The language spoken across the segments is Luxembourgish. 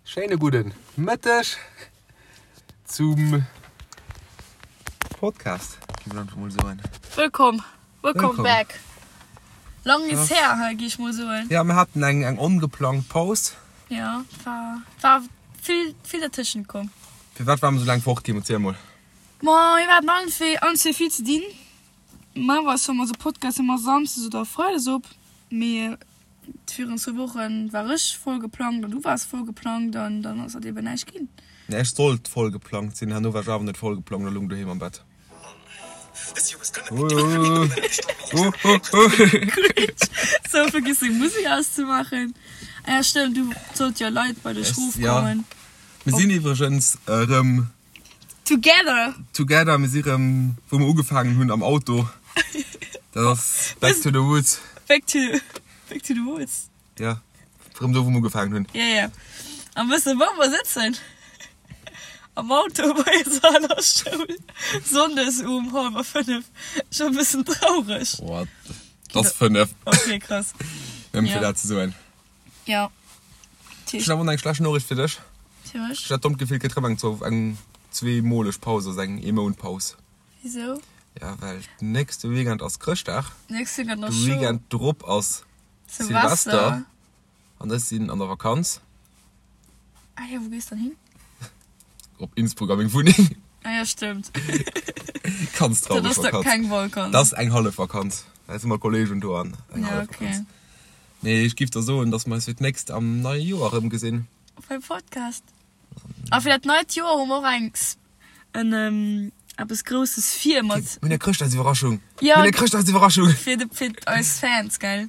Schéine gudden Mëtteg zum Podcast, gi mer einfach mol soen. Wëllkomm, welcome back. Lang is her, hei gi ech mol soen. Ja, mir haten eng eng ongeplangt Paus. Ja, war war vill vill dertëschent komm. Firwat ware mer sou laang fort, Kim? Erziel mol. Ma mir haten allen zwee allen zwee vill ze dinn. Normalerweis hu mer eise Podcast ëmmer samsdes oder freides op, mee Virun zwou Wochen war ech voll geplangt an du waars voll geplangt an dann ass dat eben näischt ginn. Nee, ech sollt voll geplangt sinn, herno war ech awer net voll geplangt a lung doheem am Bett. Sou, vergiss deng Musek auszemaachen. Ah ja, stëmmt, du sollt jo Leit bei dech rofkommen. Mir sinn iwwregens erëm. Together! Together, mir si rëm wou mer ugefaangen hunn, am Auto. Dat ass back to the roots. Back to, back to the roots. Ja, rëm do wou mer ugefaangen hunn. Ja, ja. An wëss de wou mer sëtzen? Am Auto bei eiser aler Schoul, Sonndes um hallwer 5. Scho e bëssen traureg. What? Et ass 5. Ok, krass. Nëmmen fir dat ze soen. Ja. Ech hunn awer och eng schlecht Noriicht fir dech. Fir mech? Ech hat d'dommt Gefill, et gëtt rëm eng zwou, eng zweemoleg Paus, also eng Eemount-Paus. Wisou? Ja, well nächste Weekend ass Chrëschtdag. Nächste Weekend ass De scho. Weekend drop ass Silvester. Silvester. An ech sinn an der Vakanz. Ah jo, wou gees dann hin? Op Innsbruck a meng Wunneng. Ah ja, stëmmt. Ganz traureg Dat ass da Vakanz. keng Vakanz. Dat ass eng hallef Vakanz. Da si mat Kolleegen do an eng Ja, hallef okay. Vakanz. Nee, ech giff der soen, dass mer eis fir d'nächst am neie Joer erëmgesinn. Beim Podcast. A fir dat neit Joer hu mer och eng, en, eppes Grousses vir mat. Mir hunn eng Chrëschtdagsiwwerraschung! Ja. Mir hunn eng Chrëschtdagsiwwerraschung! Fir de, fir eis Fans, gell?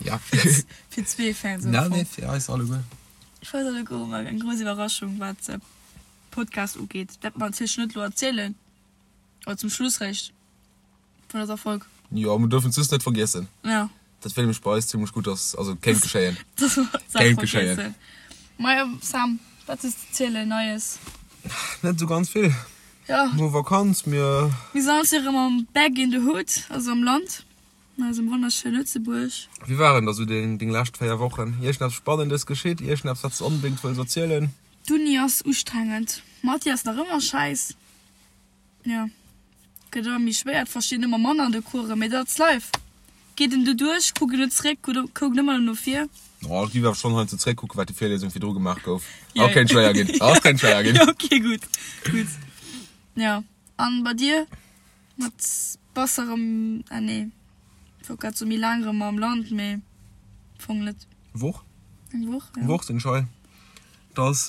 Ja. Fir zwee Fans am Na, Fong. nee, fir eis alleguer. Fir eis alleguer hu mer eng grouss Iwwerraschung, wat de Podcast ugeet. Dat mer natierlech net elo erzielen, oder zum Schluss réischt. Vun dëser Folg. Jo, mer duerfen d'Suss net vergiessen. Ja. Dat wéll mech bei eis zimlech gutt ass, also kéint geschéien. Dass mer d'Saach Kéint geschéien. vergiessen. Majo, Sam, wat hues de ze zielen Neies? Net esou ganz vill. Ja. No Vakanz, mir. Mir sinn alles erëm am back in the hood, also am Land, an eisem wonnerschöne Lëtzebuerg. Wéi waren da sou deng deng lescht 4 Wochen? Iergendeppes Spannendes geschitt? Iergendeppes wat s de onbedéngt wëlls erzielen? D'Uni ass ustrengend. Mathé ass nach ëmmer schäiss. Jo, gëtt ëmmer méi schwéier, et verstinn ëmmer manner an de Coursen, mee dat ass life. Geet en doduerch, kuckt en net zréck, kuckt ëmmer no vir. Oh, ech géif awer schonn heiansdo zréckkucken, wat déi Virliesung virdru gemaach gouf. Oh, kéint schwéier ginn. Oh, kéint schwéier ginn. Jo, ok, gutt, gutt. Jo, an bei dir? Mat bass erëm, ah nee, ech wollt grad soen, méi laang erëm am Land, mee am Fong net. Woch? Eng Woch, jo. Woch sinn ech hei. Et ass.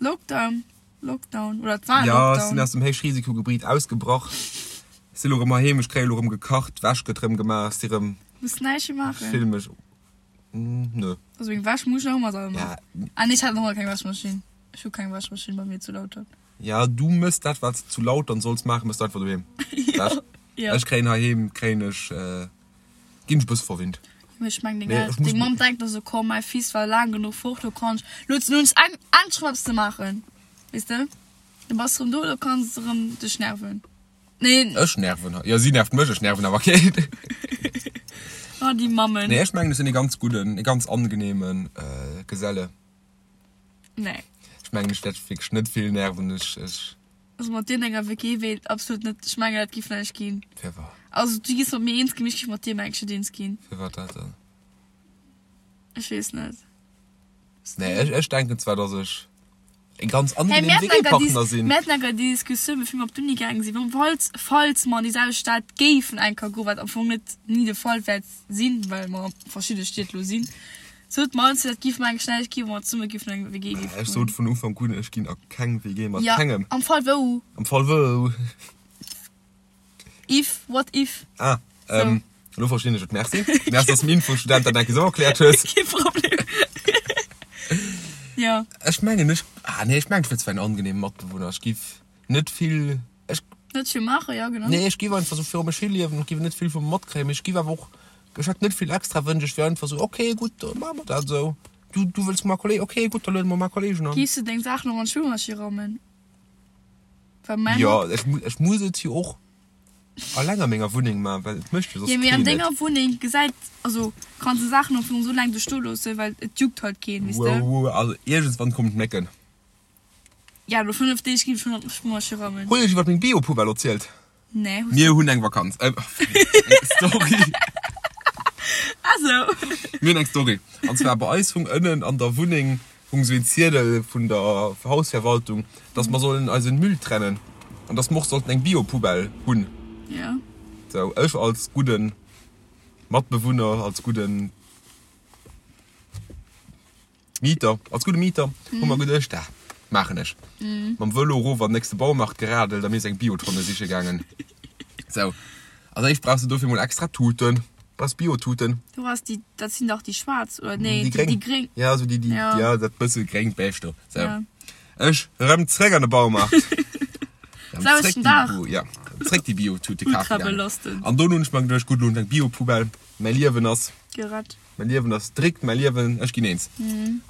Lockdown. Lockdown oder et war Ja, ech Lockdown. sinn aus dem Héichrisikogebiet ausgebrach. Ech si lo rëm heiheem, ech kréie lo rëm gekacht, d'Wäsch gëtt rëm gemaach, ech si rëm. Muss näischt méi maachen. Ech fille mech, nö. Also meng Wäsch muss ech nach ëmmer selwer maachen. Ja. Ah nee, ech hat nach ëmmer keng Wäschmaschinn. Ech hu keng Wäschmaschinn bei mir zu Lautern. Ja, du mëss dat, wat s de zu Lautern solls maachen, mëss du einfach doheem. Ja, ja. Ech kréien heiheem, kréien ech, ginn ech e bësse verwinnt. Mee ech meng, deng Nee, El, ech muss deng Mamm denkt da sou, komm, mäi Fils war laang genuch fort, lo kann ech, lo huet se nun eng, endlech erëm eppes ze maachen, weess de? Du bass erëm do, lo kanns de erëm dech nerven. Nee. Ech nerven hatt. Jo, si nervt mech, ech nerven awer keen. Oh, déi Mammen. Nee, ech mengen, ech sinn ee ganz gudden, ee ganz angenehmen Geselle. Nee. Ech mengen, ech wäert wierklech net vill nerven. Ech, ech. Also mat dir an enger WG wéilt absolut net, ech mengen dat giff näischt ginn. Firwat? Also du giss mat mir eens ginn, mee ech giff mat dir mengen ech net eens ginn. Firwat dat dann? Ech weess net. Nee, ech, ech denken zwar, dass ech e ganz Hey, angenehmen mir haten enker WG-Partner déi, sinn. mir haten enker déi Diskussioun bevir mir op d'Uni gaange sinn, wann, falls, falls mer an déi selwecht Stad géifen enker goen, wat am Fong net ni de Fall wäert sinn, well mer a verschidde Stied lo sinn, Sot mer ons, dat giff mer eng schnell gi, wa mer zesumme giffen an eng WG giffen Ech sot vun Ufank un, ech ginn a keng WG mat Ja, kengem. am Fall wou. Am Fall wou. If, what if. Ah, So. ähm, elo verstinn ech et. Merci. Merci, dass du dem Infostudent dat eng Kéier esou erkläert hues. Kee Problem. Ja. Ech mengen, ech, ah nee, ech mengen, ech wier zwar en angenehmen Matbewunner. Ech giff net vill, ech. Net vill maachen, ja genau. Nee, ech giff einfach sou viru mech hi liewen, ech giff net vill vu mer matkréien, mee ech giff awer och, ech hätt net vill extra Wënsch, ech wier einfach sou, ok, gutt, da maache mer dat esou. Du, du wëlls mar Kolleg, ok, gutt, da luede mer mar Kollegen an. Giffs de deng Saachen och an d'Spillmaschinn rammen? Well mäin Jo, Hond. ech, ech muss et jo och. Alleng a menger Wunneng man, well et mécht jo soss Jo, mee an keen et. denger Wunneng gesäit, also kanns de Saachen am Fong esou laang do stoe loossen, well et juckt halt keen, weess de. Wow, wow, also iergendswann kommen d'Mécken. Ja, no 5 Deeg ginn ech schonn an d'Spülmaschinn rammen. Hunn ech iwwert meng Bio-Poubelle erzielt? Nee, hues Mir hunn eng Vakanz, äh, eng Story. Ah sou. Mir hunn eng Story. An zwar bei eis hung ënnen an der Wunneng hung sou een Ziedel vun der Hausverwaltung, dass mer sollen eisen Müll trennen an dass mer och sollten eng Bio-Poubelle hunn. Ja. Sou, ech als gudden Matbewunner, als gudden Mieter, als gudde Mieter hu mer geduecht, dat maachen ech. Mam Vëlo erof an den nächste Baumarkt geradelt a mir is eng Biotonne siche gaangen. Sou, als éischt brauchs de dofir mol extra Tuten, brauchs Biotuten. Du has déi, dat sinn dach déi schwaarz, oder nee, Déi gréng. déi gréng. Ja, sou déi, déi, Ja. ja, dat bësse gréngt Beige do. Sou. Ja. Ech rëm zréck an de Baumarkt. Rëm Selwechten zréck déi Dag. Bio, ja, zréck déi Biotute Ultra kafe gaangen. belastend. An dono hunn ech mer geduecht, gutt, elo hunn ech eng Biopoubelle, mäi Liewen ass. Gerett. Mäi Liewen ass dréckt, mäi Liewen, ech ginn eens.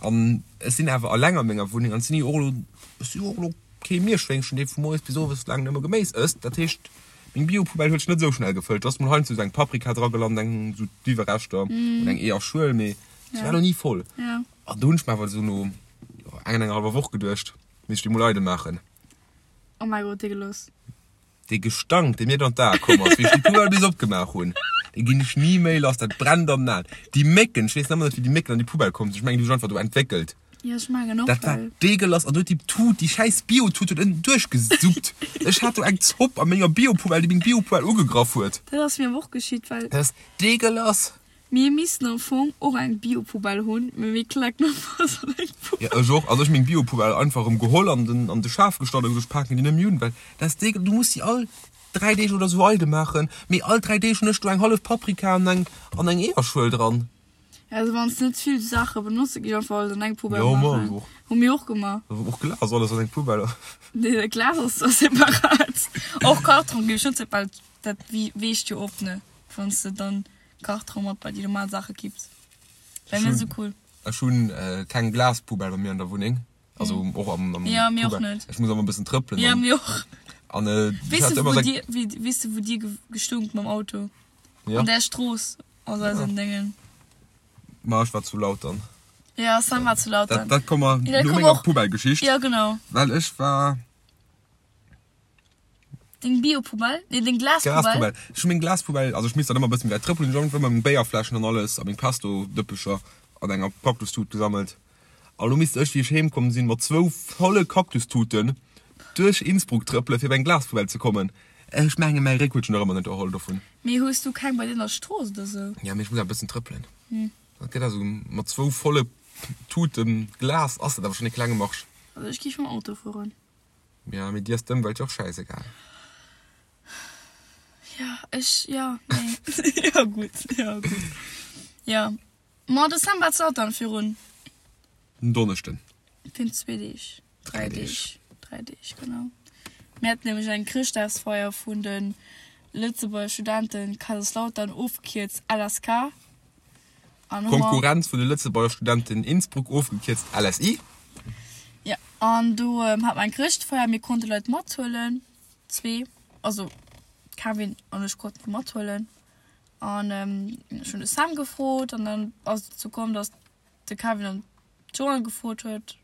An ech sinn awer alleng a menger Wunneng an et sinn jo och elo, ech si jo och elo kee Mierschwéngchen, dee vu moies bis owes laang nëmme Geméis ësst. Dat heescht, Meng Biopoubelle huet sech net esou schnell gefëllt. Do ass mol heiansdo esou eng Paprika dra gelant, eng esou d'Iwwerreschter oder eng Eeërschuel, mee se war lo ni voll. An do hunn ech mer awer esou no enger, enger hallwer Woch geduecht, misst ech déi mol eidel maachen. Oh mäi Gott, dee Geloss. Dee Gestank, dee mir dann d'Ae komm ass, wéi ech déi Poubelle bis opgemaach hunn, dee ginn ech ni méi lass. Dat brennt an den Aen. Déi Mécken, ech weess nach ëmmer net, wéi déi Mécken an déi Poubelle komm sinn. Ech mengen, déi hu sech einfach do entwéckelt. Jo, ech mengen och, Dat war well. deegelass an huet déi Tut, déi schäiss Bio-Tut huet ënnen duerchgesuppt. Ech hat do eng Zopp a menger Bio-Poubelle, déi meng Bio-Poubelle ugegraff huet. Dat ass mir awer och geschitt, well. Dat ass deegelass. Mir missten am Fong och eng Bio-Poubelle hunn, mee mir klecken einfach alles an eng Poubelle. Jo, ech och. Also ech hu meng Bio-Poubelle einfach erëm geholl an den, an de Schaf gestallt a gesot, ech paken déi net méi un, well dat ass deegel, du muss si all 3 Deeg oder sou eidel maachen, mee all 3 Deeg hunn ech do eng hallef Paprika an eng, an eng Eeërschuel dran. Also wann s net vill Saache benotze gi einfach alles an eng Poubelle Jo, ma maachen. och. Hu mir och gemaach. Och Glas, alles an eng Poubelle. Nee, dat Glas ass zwar separat. Och Karton géif ech net separat, dat weecht jo op, ne? Wann s de dann Karton mat bei déi normal Saache kipps. Wär net esou cool. Ech hunn keng Glaspoubelle bei mir an der Wunneng. Also och am, am Ja, mir och net. Ech muss ëmmer e bëssen trëppelen. Ja, mir och. An äh, Weess de, wou dir, weess de, wou dir gestunkt mam Auto? Ja. An där Strooss. Aus eisen Déngen. Ma ech war zu laut dann. Ja, Sam war zu laut dann. Dat, dat komme Ja, dat no komm menger och. Poubelle-Geschicht. Ja, genau. Well ech war. Deng Bio-Poubelle? Nee, deng Glaspoubelle. Glaspoubelle. Ech hu meng Glaspoubelle, also ech misst dann ëmmer e bëssen méi wäit trëppelen, ech hunn ëmmer meng Béierfläschen an alles a meng Pesto-Dëppecher an enger Cactus-Tut gesammelt. A lo misst ech, wéi ech heem komm sinn, mat zwou volle Cactus-Tuten duerch Innsbruck trëppelen, fir op eng Glaspoubelle ze kommen. Ech mengen, mäi Réck huet sech nach ëmmer net erholl dovun. Mee hues du keng bei dir an der Strooss oder sou? Ja, mee ech muss awer e bëssen trëppelen. Dat gëtt also mat zwou volle Tuten Glas ass dat awer schonn e klenge Marsch. Also ech géif mam Auto fueren. Ja, mee dir ass d'Ëmwelt jo och schäisegal. Ja, ech, ja, nee. Ja, gutt, ja, gutt. Ja. Ma de Sam war zu Lautern virun. En Donneschden. Virun zwee Deeg. Dräi Deeg. Dräi Deeg, genau. Mir haten nämlech eng Chrëschtdagsfeier vun de Lëtzebuerger Studenten Kaiserslautern, ofgekierzt LSK. An hu mer. Konkurrenz vun de Lëtzebuerger Studenten Innsbruck, ofgekierzt LSI. Jo, an do hate mer eng Chrëschtfeier. Mir konnte Leit mathuelen, zwee, also Kevin an ech konnten déi mathuelen. An ech hunn de Sam gefrot an dann ass et dozou komm, datt de Kevin dann d'Joanne gefrot huet.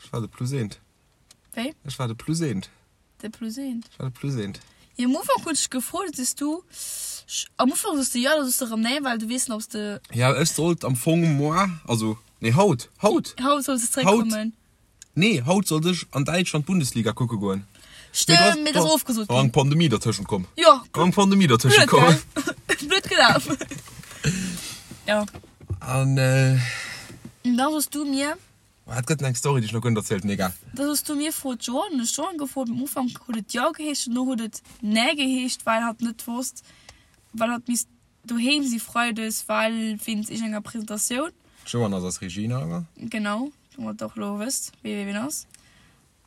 Ech war de Plus eent. Wéi? Ech war de Plus eent. De Plus eent. Ech war de Plus eent. Jo, am Ufank hunn ech dech gefrot, du sees du, am Ufank soos de jo, da soos de erëm nee, well du weess net, ob s de. Ja, ech sollt am Fong moar, also nee haut, haut! Haut solls de zeréckkommen. Nee, haut sollt ech an Däitschland d'Bundesliga kucke goen. Stëmmt, mee dat ass ofgesot ginn. Eng Pandemie dertëschent komm. Jo. Eng Pandemie dertëschent komm. Blöd gelaf. Jo. An äh. Da soss du mir. Et gëtt eng Story, déi ech nach guer net erzielt hunn, egal. Da soss du mir, Frot d'Joanne. Hunn ech d'Joanne gefrot. Am Ufank huet et jo geheescht, dono huet et nee geheescht, well hatt net wosst, well hatt misst Doheem si Freides, well wéinst iergendenger Presentatioun. D'Joanne ass eis Regina, oder? Genau, domat der och elo wësst, wee wee ween ass.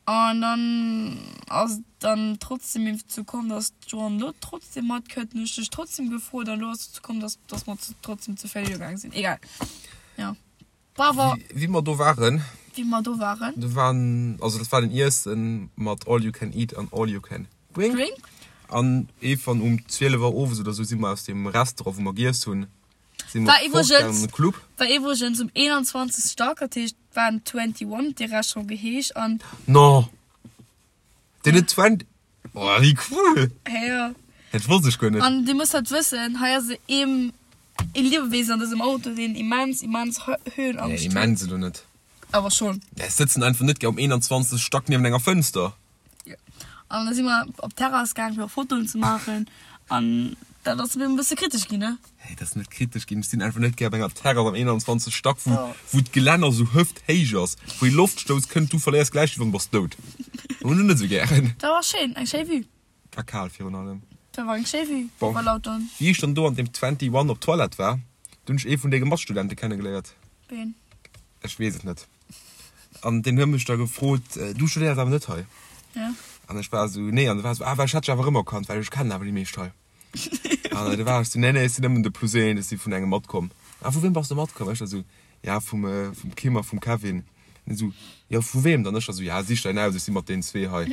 An dann ass et dann trotzdem dozou komm, dass d'Joanne elo trotzdem matkënnt. Hunn ech dech trotzdem gefrot an elo ass et dozou komm, dass dass mer trotzdem zu véier gaang sinn. Egal, jo. Bravo! Wéi mer do waren. Wéi mer do waren. Do waren, also dat war den Iessen mat all you can eat an all you can drink. Drink. An eefan um 12 Auer owes oder sou si mer aus deem Restaurant, wou mer giess hunn, si mer War fort gaangen iwwregens an de Club. war iwwregens um 21. Stack, dat heescht war en 21 huet dee Restaurant geheescht an. No! Deen huet 20. Oh, wéi cool! Hä jo. Dat wosst ech guer net. An dir musst halt wëssen, hei ass ee ee Liewewesen an dësem Auto, deen immens, immens Höhenangscht Nee, huet. immens elo net. Awer schonn. Ech sëtzen einfach net gär um 21. Stack niewent enger Fënster. Jo. An da si mer op d'Terrass gaang fir och Fotoen ze maachen an dat ass e bësse kritesch ginn, ne? Hey, dat ass net kritesch ginn. Ech sinn einfach net gär op enger Terrass am 21. Stack, wou, wou d'Gelänner sou hëfthéich ass, wou ee Loftstouss kënnt, du verléiers d'Gläichgewicht an bass dout. Hunn ech net sou gären. Dat war schéin, eng schéi Vue. War kal virun allem. Dat war eng schéi Vue Bon, iwwer Lautern. wéi ech dann do an deem 21 op d'Toilette war, do hunn ech ee vun denge Matstudente kennegeléiert. Ween? Ech weess et net. An deen huet mech da gefrot, Du studéiers awer net hei? Ja. An ech war esou, Nee. An e war esou, Ah, well ech hätt dech awer erëmerkannt, well ech kennen awer déi meescht hei. An du war ech esou, Nee, nee, ech sinn nëmmen de Plus een, ech si vun engem matkomm. Ah, vu weem bass de matkomm? Ech da esou, Ja, vum, vum Kim a vum Kevin. An hien esou, Jo, vu weem dann? Ech da esou, Ja, sich däin aus, ech si mat deenen zwee hei.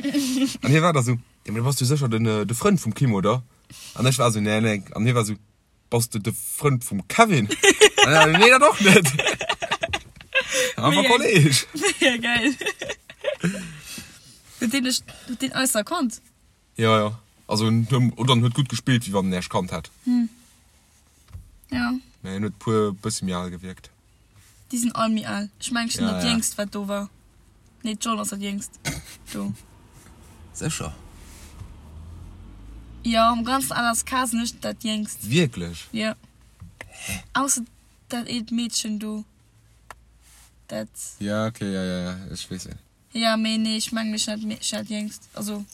An hie war da esou, Jo, mee da bass du sécher den, de Frënd vum Kim, oder? An ech war esou, Nee, nee. An hie war esou, Bass de de Frënd vum Kevin? Nee, dat och net. Awer Kolleg. Mega geil. Huet deen dech, huet deen eis erkannt? Jo, jo. Also, oder en huet gutt gespillt, wéi wann en Äech kannt hätt. Ja. Mä en huet puer bësse méi al gewierkt. Déi sinn all méi al. Ech mengen, ech sinn Ja, dat ja. Jéngst, wat do war. Nee, d'John ass dat Jéngst do. Sécher? Jo, am ganzen LSK sinn ech dat Jéngst. Wierklech? Jo. Ausser dat eent Meedchen do. Dat. Ja, okay, ja, ja, ja, ech weess ween. Ja, mee nee, ech mengen, ech sinn dat, ech sinn dat Jéngst. Also,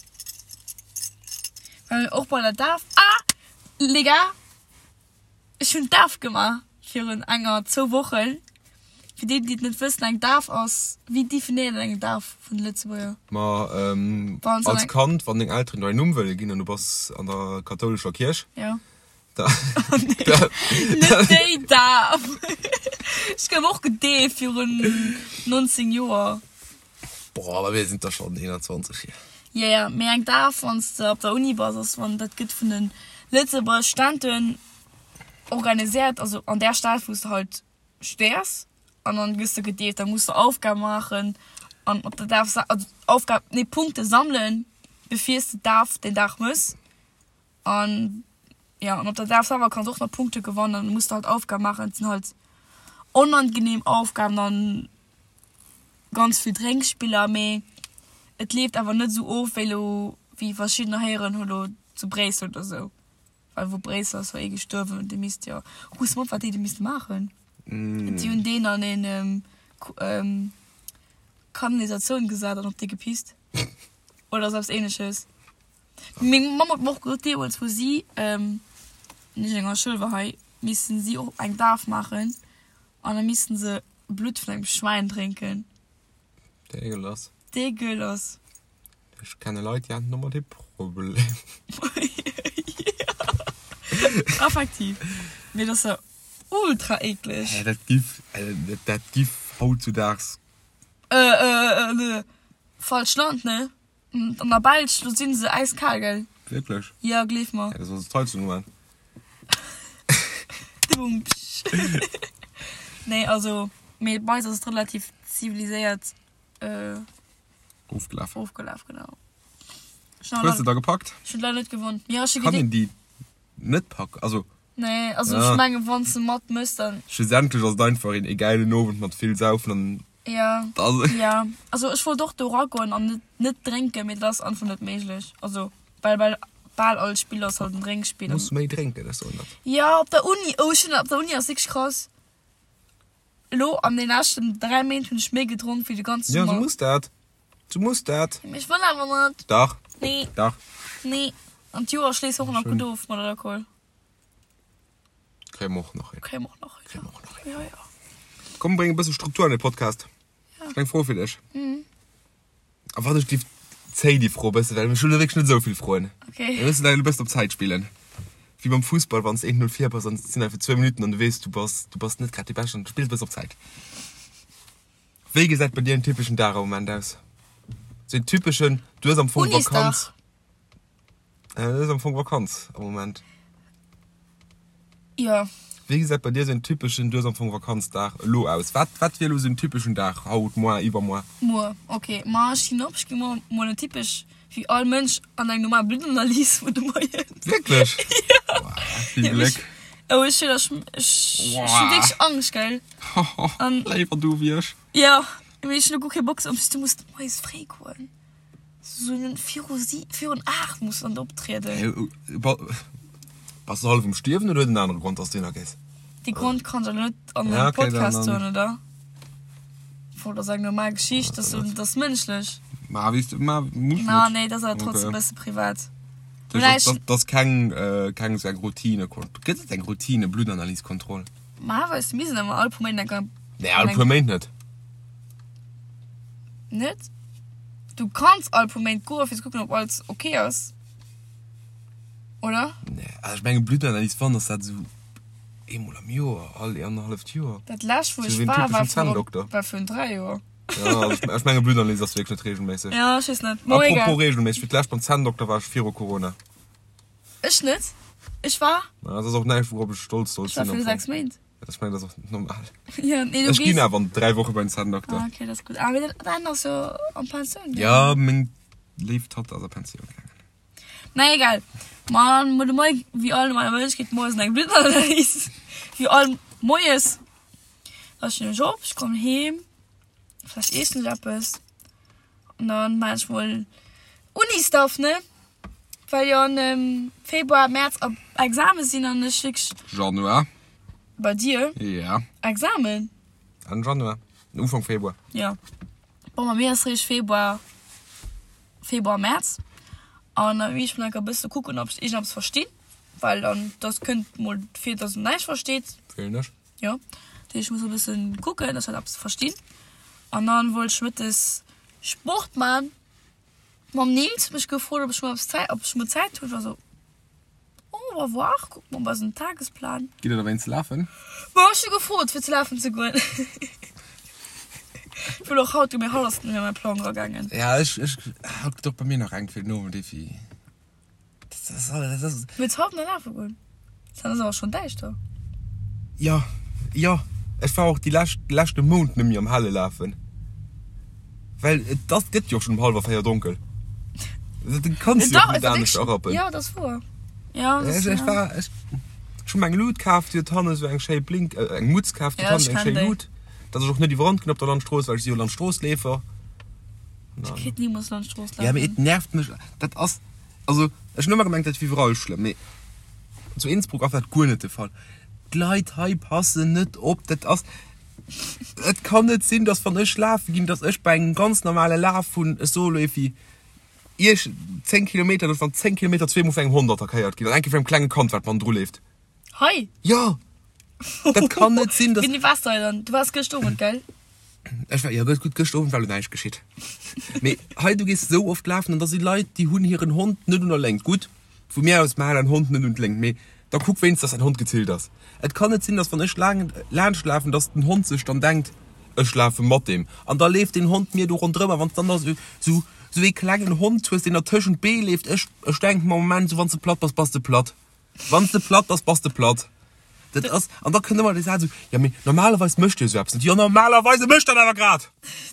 well och bei der Daf. Ah! Les gars! Ech hunn d'Daf gemaach virun enger, zwou Wochen. Fir déi, déi et net wëssen, eng Daf ass, wéi definéiert een eng Daf vun de Lëtzebuerger? Ma als Kand, wann deng Elteren der en Numm wëlle ginn an du bass an der kathoulescher Kierch, Jo. da. Net déi Daf! Ech gouf och gedeeft virun 19 Joer. Boah, awer mir sinn der schonn 21 hier. Jo, jo, mee eng Daf, wann s de op der Uni bass, ass wann dat gëtt vun de Lëtzebuerger Studenten organiséiert, also an där Stad wou s de halt studéiers, an dann gëss de gedeeft. Da muss de Aufgabe maachen an op der Daf, also Aufgab, nee Punkte sammelen, bevir s de d'Daf deen Dag mëss. An jo, an op der Daf selwer kanns och nach Punkte gewannen, dann muss de halt Aufgaben maachen. Et sinn halt onangenehm Aufgaben an ganz vill Drénkspiller, mee et leeft awer net esou of wéi elo, wéi verschiddener héieren hu lo zu Bréissel oder esou. Well wou Bréissel ass, war ee gestuerwen, dee misst jo, rooss mer op wat déi do misste maachen. Si hunn deen an een Kanalisatioun gesat an op dee gepisst oder esou eppes Ähnleches. Meng Mamm huet mer och gesot, deemools wou si nicht an enger Schoul war hei, missten si och eng Daf maachen an da missten se Blutt vun engem Schwäin drénken. Dégueulasse. Dégueulasse. Ech kenne Leit, déi haten domat ee Problem. Effektiv. Mee dat ass jo ultra eekleg. Hä, dat giff, dat giff hautzudaags. Falscht Land, ne? An der Belsch, do sinn se äiskal, gell? Wierklech? Jo, gleef mer. Ja, da soll se d'Heizung uman. Dubumtsch. Nee, also, mee bei eis ass et relativ ziviliséiert Ofgelaf. Ofgelaf, genau. Hues de da gepackt? Ech hunn leider net gewonn. Jo, ech hu Kann een déi net packen? Also. Nee, also ech mengen, wann s de mat mëss, dann. Schlussendlech ass et einfach een gäilen Owend mat vill Saufen an. Ja, ja. Also ech wollt och do eragoen an net, net drénken, mee dat ass einfach net méiglech. Also well bei bal all Spill ass halt en Drénkspill. Muss méi drénken, ech soen dat. Ja, op der Uni, oh ech hunn, op der Uni ass wierklech krass. Elo an den leschten 3 Méint hunn ech méi gedronk wéi de ganze Ja, Summer. du muss dat. Du muss dat. Mee ech wëll awer net. Dach. Nee. Dach. Nee. An d'Joer schléisst och nach gutt of mat Alkohol. Kréie mer och nach hin. Kréie mer och nach hin. Kréie mer och nach hin. Ja, ja. Komm, bréng e bësse Struktur an de Podcast. Ja. Ech hunn eng Fro fir dech. A wat ech giff, zéi déi Fro e bësse, well ech hunn elo wierklech net esou vill Froen. Okay. Mir mussen elo e bëssen op Zäit spillen. Wéi beim Fussball, wann s de 1-0 vir bass an et sinn nach fir zwou Minutten an du weess, du bass, du bass net grad dee Beschten an du spills e bëssen op Zäit. Wéi gesäit bei dir en typeschen Dag am Moment aus? Sou en typeschen, du hues am Fong Unisdag. Vakanz. Dat ass am Fong Vakanz am Moment. Jo. Wéi gesäit bei dir esou en typeschen, du hues am Fong Vakanzdag, elo aus? Wat, wat wier elo esou en typeschen Dag, haut, moar, iwwermoar? Muer, ok. Ma ech stinn op, ech gi muer mol net typesch wéi all Mënsch an eng normal Bluttanalyse vun de Moien. Wierklech? Jo. Wow, vill Gléck. Oh, ech hunn, ech, ech hu wierklech Angscht, gell. An. Léiwer du wéi ech. Jo, mee ech hunn elo guer kee Bock, en plus du muss moies fréi goen. Sou viru si virun 8 muss dann optrieden. Bass du hallef um Stierwen oder huet en anere Grond, dass du hinner gees? Dee Grond kann ech awer net an engem Podcast soen, oder? Bon, dat ass eng normal Geschicht, dat ass mënschlech. Ma wéi s du, ma muss net. Ma nee, dat ass awer trotzdem e bësse privat. Dat ass keng, keng esou eng Routine-Kontroll. Gëtt et eng Routine-Bluttanalys-Kontroll? Ma weess de, mir sinn ëmmer all puer Méint eng. Nee, all puer Méint net. Net? Du kanns all puer Méint goen fir ze kucken ob alles ok ass, oder? Nee, also ech mengen Bluttanalys wann ass dat esou eemol am Joer, all annerhalleft Joer. Dat lescht wou ech war, war virun, war virun 3 Joer. Ja, also ech mengen Bluttanalys ass wierklech net regelméisseg. Ja, ech weess net. Mo egal. Apropos regelméisseg, fir d'lescht beim Zänndokter war ech viru Corona. Ech net. Ech war. Ma dat ass och näischt wourop ech stolz sollt sinn. Ech war viru 6 Méint. Ech mengen, dat ass och normal. Ja, nee, du Ech ginn awer an 3 Woche bei den Zänndokter. Ah, okay, dat ass gutt. Ah, mee däin ass jo an Pensioun gaangen. Ja, meng léif Tatt ass a Pensioun gaangen. Na egal. Ma de Moie, wéi all normaler Mënsch, geet moies an eng Bluttanalys. Wéi all Moies. Da stinn ech op, ech kommen heem, vläicht iessen ech eppes. An dann maan ech mol Uni-Stuff, ne? Well jo an Februar, März a Examen sinn an ech wierklech. Januar. Bei dir? Ja. Examen? Enn Januar, Ufank Februar. Ja. Bon, bei mir ass réischt Februar, Februar, März. An da ech mol enker e bësse kucken, ob ech iergendeppes verstinn, well dann, dass kënnt mol vir, dass een näischt versteet. Fillen ech. Jo, dat heescht, ech muss e bëssen kucken, dass ech eppes verstinn. An dann wollt ech mëttes Sport man. Mam Nils mech gefrot, ob ech mol eppes Zäit, ob ech mol Zäit hunn. Ech war sou, on va voir, kucke mer op eisen Tagesplan. Gitt der dowéinst lafen? Ma ech hu gefrot, fir ze lafen ze goen. Ech wëll och haut, mee haut ass et net méi an mäi Plang eragaangen. Ja, ech, ech, haut gëtt och bei mir nach eng fir den Owend, Evi. Wëlls haut nach lafe goen? Dann ass awer schonn däischter. Jo, jo, ech war och déi lescht, de leschte Mount net méi am Helle lafen, well et ass, gëtt jo och schonn um hallwer 4 donkel. Du kanns jo och net anescht erappen. Jo, dat ass wouer. Jo, dat ass, Ech war, ech, ech hu mer eng Lut kaf, déi huet hannen esou eng schéi Blink, eng Mutz kaf, déi huet hannen eng schéi Lut, dass ech och net iwwerrannt ginn op der Landstrooss, well ech si jo Landstroossleefer. Ech kéint nimools Landstrooss lafen. Ja, mee et nervt mech, dat ass. Also ech hunn ëmmer gemengt dat wier iwwerall schlëmm, mee zu Innsbruck ass dat guer net de Fall. D'Leit hei passen net op, dat ass, et kann net sinn, datt wann ech lafe ginn, datt ech bei engem ganz normale Laf vun, ech soe lo evi iech 10 Kilometer, datt ech an 10 Kilometer zweemol vun engem Hond attackéiert ginn an eng Kéier vun engem klenge Kand wat bannendru leeft. Hei? Jo! Dat kann net sinn, dass. Wéini waars de hei dann? Du waars gëscht Owend, gell? Ech war, jo gutt, gëscht Owend war lo näischt geschitt. Mee hei, du gees esou oft lafen an da si Leit, déi hunn hiren Hond net un der Léngt. Gutt, vu mir aus, mä hal däin Hond net un d'Léngt, mee da kuck wéinst, dass däin Hond gezillt ass. Et kann net sinn, dass wann ech laang laanscht lafen, dass den Hond sech dann denkt, ech lafe mat deem. An da leeft deen Hond mir do ronderëm a wann s dann da esou, esou, esou ee klengen Hond hues, deen der tëschent d'Bee leeft, ech, ech denken mer am Moment esou, wann s de platt bass, bass de platt. Wann s de platt bass, bass de platt. Dat ass, an da kënnt ëmmer dee Saz esou, jo mee normalerweis mécht Dir esou eppes net. Jo normalerweise mécht dat awer grad!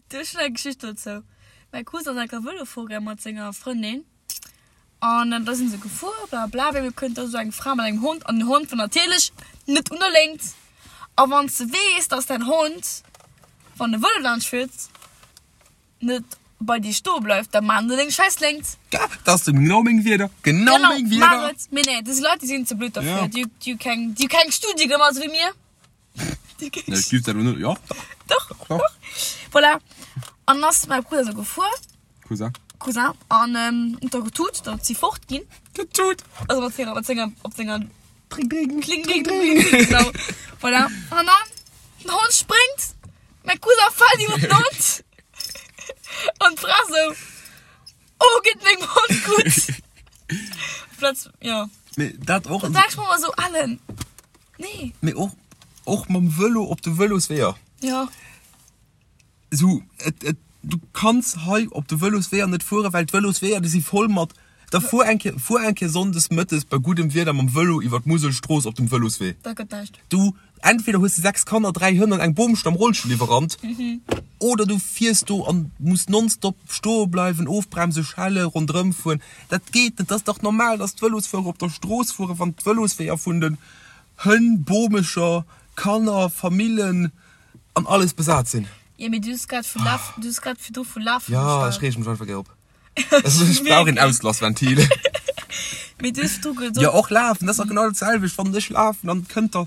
Du, ech hunn eng Geschicht dozou. Mäi Cousin ass eng Kéier Vëlo fuer gaang mat senger Frëndin an da sinn se gefuer, bla bla, op eemol kënnt da esou eng Fra mat engem Hond an den Hond war natierlech net un der Léngt. A wann s de weess, dass däin Hond, wann e Vëlo laanscht fiert, net bei dir stoe bleift, da maan der deng scheiss Léngt. Ja, dat ass genau meng Wierder, genau Genau, meng maach Wierder. et. Mee nee, des Leit, déi sinn ze blöd derfir. Ja. Déi, déi hu keng, déi hu keng Studie gemaach, esou wéi mir. Déi hu keng Nee, ech giff dat elo net, jo, Doch, doch, doch. doch. Voilà. An ass mäi Brudder esou gefuer. Cousin. Cousin. An huet da getut, datt si fort ginn. Getut! Also mat senger, mat senger, op senger. Dring, dring. Kling, dring, dring, dring, genau. Voilà. An dann, den Hond spréngt. Mäi Cousin fält iwwer den Hond an d'Fra sou, Oh, geet mengem Hond gutt? Platz, jo. Mee dat och. Da sag ech mer ëmmer sou, Alen, nee. Mee och, och mam Vëlo op de Vëlosweeër. Jo. Sou, et, et, du kanns hei op de Vëlosweeër net fueren, well d'Vëlosweeër, déi si voll mat. Da fuer eng Kéier, fuer eng Kéier sonndes mëttes bei guddem Wieder mam Vëlo iwwer d'Muselstrooss op dem Vëloswee. Dat gëtt näischt. Du, entweder hues de 6 Kanner, 3 Hënn an eng Boomstamm Rollstull iwwerrannt, oder du fiers do an muss nonstop stoe bleiwen, ofbremsen, schelle, ronderëm fueren. Dat geet net. Dat ass dach normal, dass d'Vëlosfuerer op der Strooss fueren, wann d'Vëlosweeër vun den Hënn, Bomecher, Kanner, Famillen an alles besat sinn. Jo, mee du hues grad vu Laf, du hues grad virdru vu Lafen Jo, geschwat. ech reege mech einfach gär op. Ech brauch een Auslassventil. Mee du hues virdru gesot. Jo, och lafen, dat ass dach genau dat selwecht. Wann ech lafen, dann kënnt der.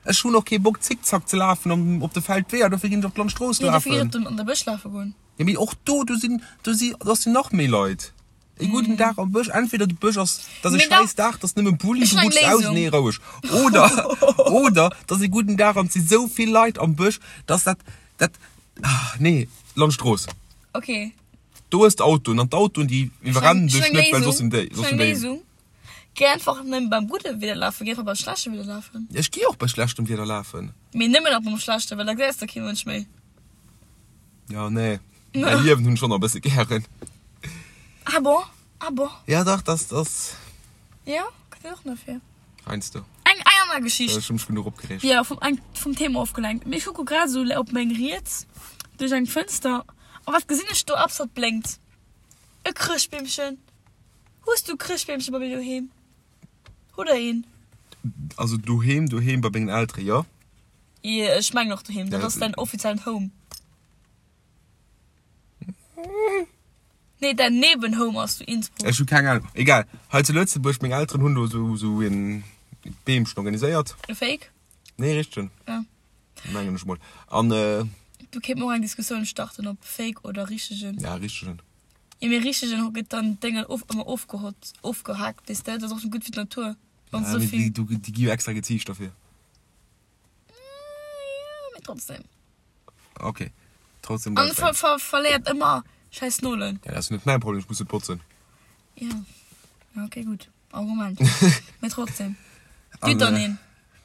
Ech hunn och kee Bock Zickzack ze lafen an op de Feldweeër, dofir ginn ech op d'Landstrooss Jo, dofir ginn lafen. ech op den, an de Bësch lafe goen. Jo, mee och do, do sinn, do si, do sinn nach méi Leit. E gudden Dag am Bësch, entweder de Bësch ass, dat ass e Mee da- schäiss Dag, dat ass nëmme Bulli, Ech du hunn eng rutschs aus, Léisung. nee, roueg. Oder, oder, dat ass e gudden Dag an et si sou vill Leit am Bësch, dass dat, dat, ah, nee, Landstrooss. Okay. Do hues de Autoen an d'Autoen, déi iwwerrennen Ech hunn dech eng net, well soss Léisung. sinn déi, Ech soss hunn sinn eng déi. Léisung. Géi einfach net beim gudde Wieder lafen, géi einfach beim schlechte Wieder lafen. Ech gi och bei schlechtem Wieder lafen. Mee nëmmen nach beim schlechte, well da gesäis de kee Mënsch méi. Ja, nee. Mäi Liewen hunn ech schonn nach e bësse gären. Ah bon? Ah bon? Ja, dach, das, das. Ja, kënnt een och nach fir. Heiansdo. Eng, eng aner Geschicht. Ech hu mech genuch opgereegt. Ja, vum, eng, vum Thema ofgelenkt. Mee ech kucke grad esou op meng Riets duerch eng Fënster a wat gesinn ech do eppes wat blénkt? E Chrëschtbeemchen. Hues du Chrëschtbeemche bei dir doheem? Hutt der een? Also doheem, doheem bei mengen Eltere jo. Jo, ech mengen och doheem. Dat ass däin offiziellen Home. Nee, däin Nebenhome ass zu Innsbruck. Ech hu keng Ahnung. Egal. Hei zu Lëtzebuerg, meng Elteren hunn do esou esou een Beemchen organiséiert. E Fake? Nee, richtegen. Ja. Mengen ech mol. An äh. Do kéint mer och eng Diskussioun starten, ob Fake oder richtegen. Ja, richtegen. Jo, mee richtegen gëtt dann d'Déngen of ëmmer ofgehott, ofgehaakt, weess de. Dat ass och net gutt fir d'Natur, wann Ja, se mee souvill. déi, déi gi jo extra geziicht dofir. Jo, mee trotzdem. Ok, trotzdem An ver ver verléiert ëmmer schäiss Nolen. Ja, dat ass net mäin Problem, ech muss net botzen. Ja, ja ok, gutt Argument. Mee trotzdem. Dir dann een.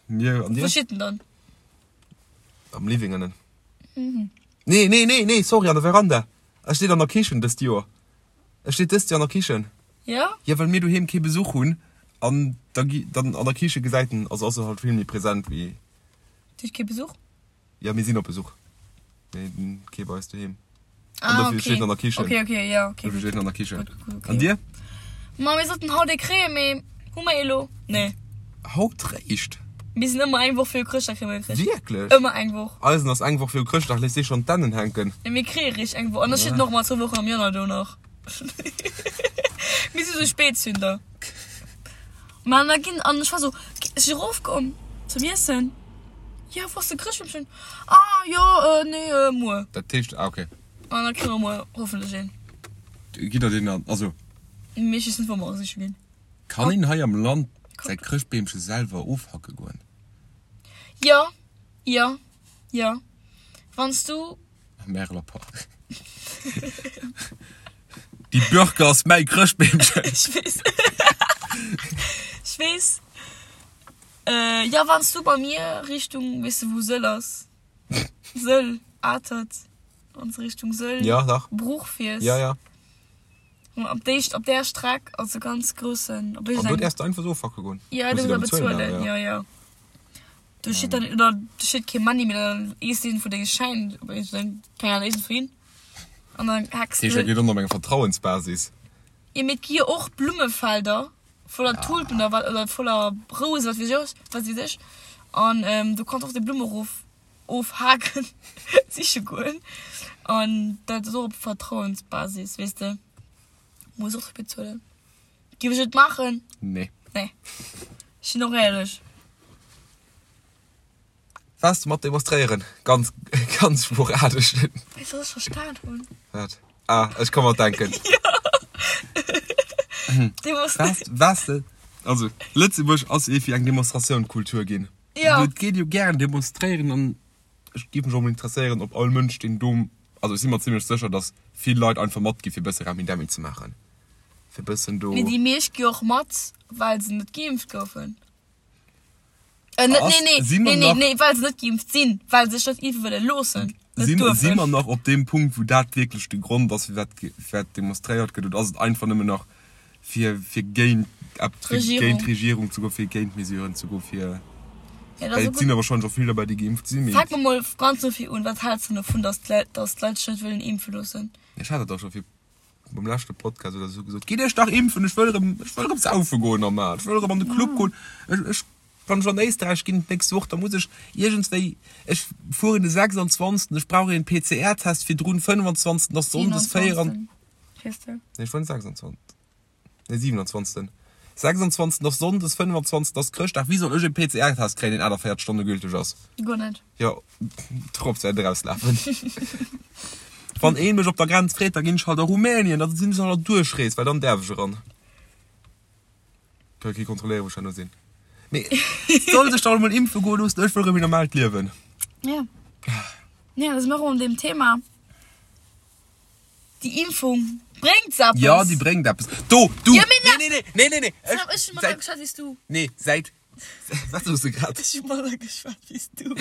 Mir an dir? Wou steet en dann? Am Living ënnen. Mhm. Nee, nee, nee, nee, sorry, an der Veranda. E steet an der Kichen dëst Joer. E steet dëst Joer an der Kichen. Ja? Ja, well mir doheem kee Besuch hunn an da gi dann an der Kiche gesäit en, also ass e halt vill méi present wéi. Dir hutt kee Besuch? Ja, mir sinn op Besuch. Mee kee bei eis doheem. Ah, An dofir okay. steet en an der Kichen. Okay, okay, ja, okay. Dofir steet en an der Kichen. Gut, gut, okay. An dir? Ma mir sollten haut ee kréien, mee hu mer ee lo? Nee. Haut réischt? Mir sinn ëmmer eng Woch viru Chrëschtdag kréie mer e Chrëscht. Wierklech? Ëmmer eng Woch. Eisen ass eng Woch viru Chrëschtdag, léisst dee schonn d'Dännen hänken. Nee, mir kréie réischt eng Woch. An da steet en och ëmmer zwou Wochen am Januar do nach. Mir si sou Spätzünder. Ma an da ginn, an ech war sou, ech si erofkomm zum Iessen. Jo, wou ass de Chrëschtbeemchen? Ah, jo, nee, muer. Dat heescht, ah, okay. An da kréie mer muer hoffentlech een. Gitt der deen dann, also. Mee ech weess net, wou mer e siche ginn. Kann een hei am Land säi Chrëschtbeemche selwer ofhacke goen? Jo, jo, jo. Wann s du. Am Märeler Park. Déi Birke ass mäi Chrëschtbeemchen. Ech weess. Ech weess. Äh, jo, wann s du bei mir Richtung, weess de wou Sëll ass? Sëll, Atert, wann s de Richtung Sëll, Ja, dach. Bruch fiers. Ja, ja. Op déi, op där Streck ass e ganz groussen, op An do iergendengem. däerfs de einfach esou ofhacke goen? Ja, Muss do de da muss der bezuelen bezuelen, awer, ja, ja. Do steet dann, oder do steet kee Money, mee dann ees een vu denge Schäin, op iergendeng, keng Ahnung, iergendwou hin. An dann hacks Dat heescht, dat de. geet och op enger Vertrauensbasis. Jo, mee et gi jo och Blummefelder voller Tulpen oder wat, oder voller Rousen, wat weess ech, wat weess ech. An do kanns och déi Blumme erof ofhaken, siche goen. An dat ass och op Vertrauensbasis, weess de. Muss och bezuelen. Giff ech et maachen? Nee. Nee. Ech sinn och éierlech. Waars de mat demonstréieren? Ganz, ganz sporadesch. Weess du, wat ech verstan hunn? Wat? Ah, ech ka mer denken. Demonstréieren. Waars, waars de? Also, Lëtzebuerg ass ee fir eng Demonstratiounkultur ginn. Ja. Et geet jo gären demonstréieren an ech géif mech och mol interesséieren, ob all Mënsch, deen do, also ech si mer zimlech sécher, datt vill Leit einfach matgi fir e bësse Remmidemmi ze maachen, fir e bëssen do. Mee déi meescht gi och mat, well se net geimpft goufen. Äh, net, Ass, nee, nee, si mer nee, nee, nach, nee, well se net geimpft sinn, well se sech net impfe wëlle loossen, net si, si duerfen. mer nach op deem Punkt, wou dat wierklech de Grond ass, firwat, firwat demonstréiert gëtt, oder ass et einfach nëmmen nach. Fir, fir géint ep, fir géint d'Regierung ze goen, fir géint d'Mesuren ze goen, fir. Ja, dat ass Well et sinn der wahrscheinlech och vill derbäi, déi geimpft sinn, mee. Fänke mer mol ganz no vir un, Wat häls de dovun, datt d'Leit, datt d'Leit sech net wëllen impfe loossen? Ech hat dat dach scho vir beim leschte Podcast oder esou gesot, Gitt iech dach impfen, ech wëll erëm, ech wëll erëm saufe goen normal, ech wëll erëm an de Club goen, ech, ech, wann ech an Éisträich ginn d'nächst Woch, da muss ech iergendswéi, ech fueren de 26., ech brauch een PCR-Test virdrun, 25. ass Sonndes, 4. 27. Fiers de? Nee, ech fueren 26. Nee, 27. 26. ass Sonndes, 25. ass Chrëschtdag. Wéi soll ech e PCR-Test kréien, deen 48 Stonne gülteg ass? Guer net. Jo, d'Drops wäert erauslafen. Wann ee mech op der Grenz freet, da ginn ech halt a Rumänien, da sinn ech an der Duerchrees, well dann däerf ech eran. Ka kee kontrolléieren, wou ech herno sinn. Mee soll sech dach emol impfe goe loossen, ech wëll erëm een normaalt Liewen. Ja. Ja, da si mer erëm an deem Thema. Déi Impfung bréngt eppes. Jo, déi bréngt eppes. Do, du! Jo, mee Nee, nee, nee, nee, nee, nee. Ech hu manner Säit, geschwat wéi s du. nee, säit, wat soos de grad? Ech hu manner geschwat wéi s du.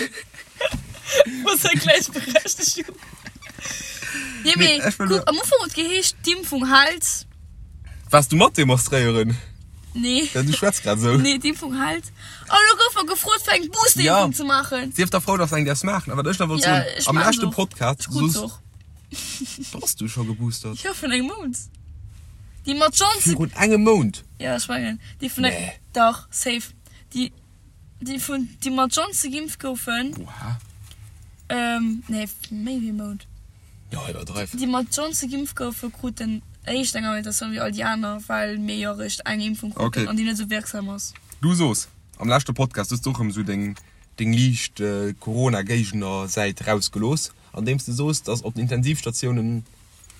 Muss der Gläichberechtegung. Nee, Nee, mee ech wëll kuck, nur- am Ufank huet geheescht, d'Impfung hält. Waars du mat demonstréieren? Nee. Ja, du schwätz grad esou. Nee, d'Impfung hält. An elo gouf mer gefrot, fir eng Boosterimpfung Ja. ze maachen. Sief da frou, dass eng däerfs maachen. A wat ech nach wollt Ja, soen, ech am maachen leschte se och. Podcast Ech krut se soos och. Bass du scho geboostert? Jo, vun engem Mount. Déi mat Johnson. Virun engem Mount? Ja, ech mengen, déi vun eng. Nee. Dach, safe. Déi, déi vun, déi mat Johnson geimpft goufen. Oha. Ähm, nee, méi wéi e Mount. Jo, iwwerdreiw. Déi mat Johnson geimpft goufen, kruten éischt eng Invitatioun wéi all déi aner, well mir jo eréischt eng Impfung kruten Okay. an déi net esou wierksam ass. Du soos am leschte Podcast, hues du och erëm esou deng, deng liicht Corona-Géigner-Säit rausgelooss. Andeems de soos, dass op den Intensivstatiounen,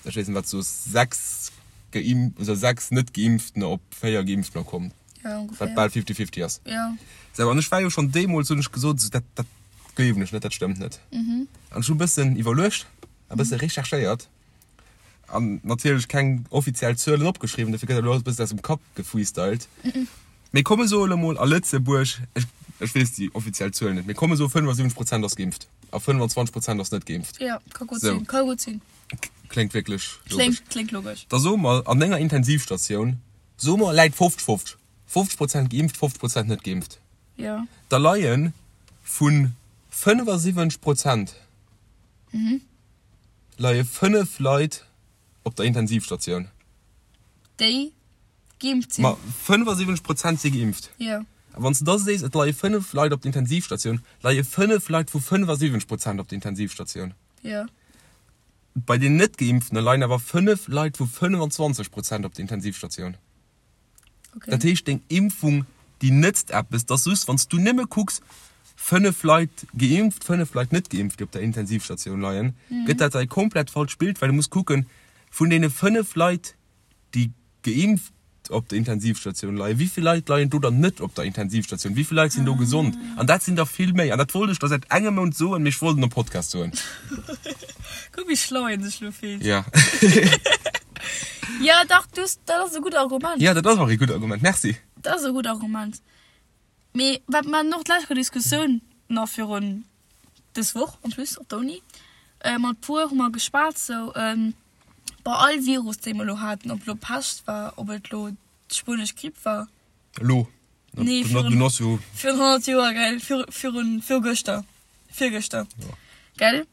ech weess net wat s de soos, 6 geimpft oder 6 net Geimpftener op 4 Geimpftener kommen, Ja, ongeféier. wat bal fifty-fifty ass. Ja. Sou, an ech war jo schonn deemools, hunn ech gesot, sou, dat, dat gleewen ech net, dat stëmmt net. An ech hu e bëssen iwwerluecht, e bësse recherchéiert an natierlech keng offiziell Zuelen opgeschriwwen, dofir gëtt dat elo alles e bëssen aus dem Kapp gefreestylt. Mee komm, soe elo mol a Lëtzebuerg, ech, ech weess déi offiziell Zuelen net, mee komm, soe 75 Prozent ass geimpft a 25 Prozent ass net geimpft. Ja, ka gutt Sou. sinn, ka gutt sinn. Kléngt wierklech logesch. Kléngt, kléngt logesch. Da soe mer, an enger Intensivstatioun, soe mer, läit 50, 50, 50 Prozent geimpft, 50 Prozent net geimpft. Ja. Da leie vu 75 Prozent leie 5 Leit op der Intensivstatioun. Déi geimpft sinn. Ma 75 Prozent si geimpft. Jo. A wann s de da sees, et leie 5 Leit op der Intensivstatioun, leie 5 Leit vu 75 Prozent op der Intensivstatioun. Jo. Bei den Net-Geimpftene leien awer 5 Leit vu 25 Prozent op der Intensivstatioun. Okay. Dat heescht, deng Impfung, déi nëtzt eppes. 't ass just, wann s du nëmme kucks, 5 Leit geimpft, 5 Leit net geimpft, déi op der Intensivstatioun leien, gëtt dat e komplett falscht Bild, well du muss kucken, vun deene 5 Leit, déi geimpft op der Intensivstatioun leien, wéi vill Leit leien do dann net op der Intensivstatioun, wéi vill Leit sinn do gesond? An dat sinn der vill méi. An dat wollt ech der säit engem Mount soen, mee ech wollt et am Podcast soen. Kuck, wéi schlau een sech lo fillt. Ja. Ja, dach, du hues, dat ass e gutt Argument. Ja, dat ass och e gutt Argument. Merci. Dat ass e gutt Argument. Mee wat mer haten och d'lescht Kéier Diskussioun nach virun dës Woch en plus op der Uni, mat puer hu mer geschwat sou, bei all Virus dee mer elo haten, ob et elo Pescht war, ob et elo d'spuenesch Gripp war. Elo? Nee, virun, virun 100 Joer, gell, virun, virgëschter, virgëschter, gell.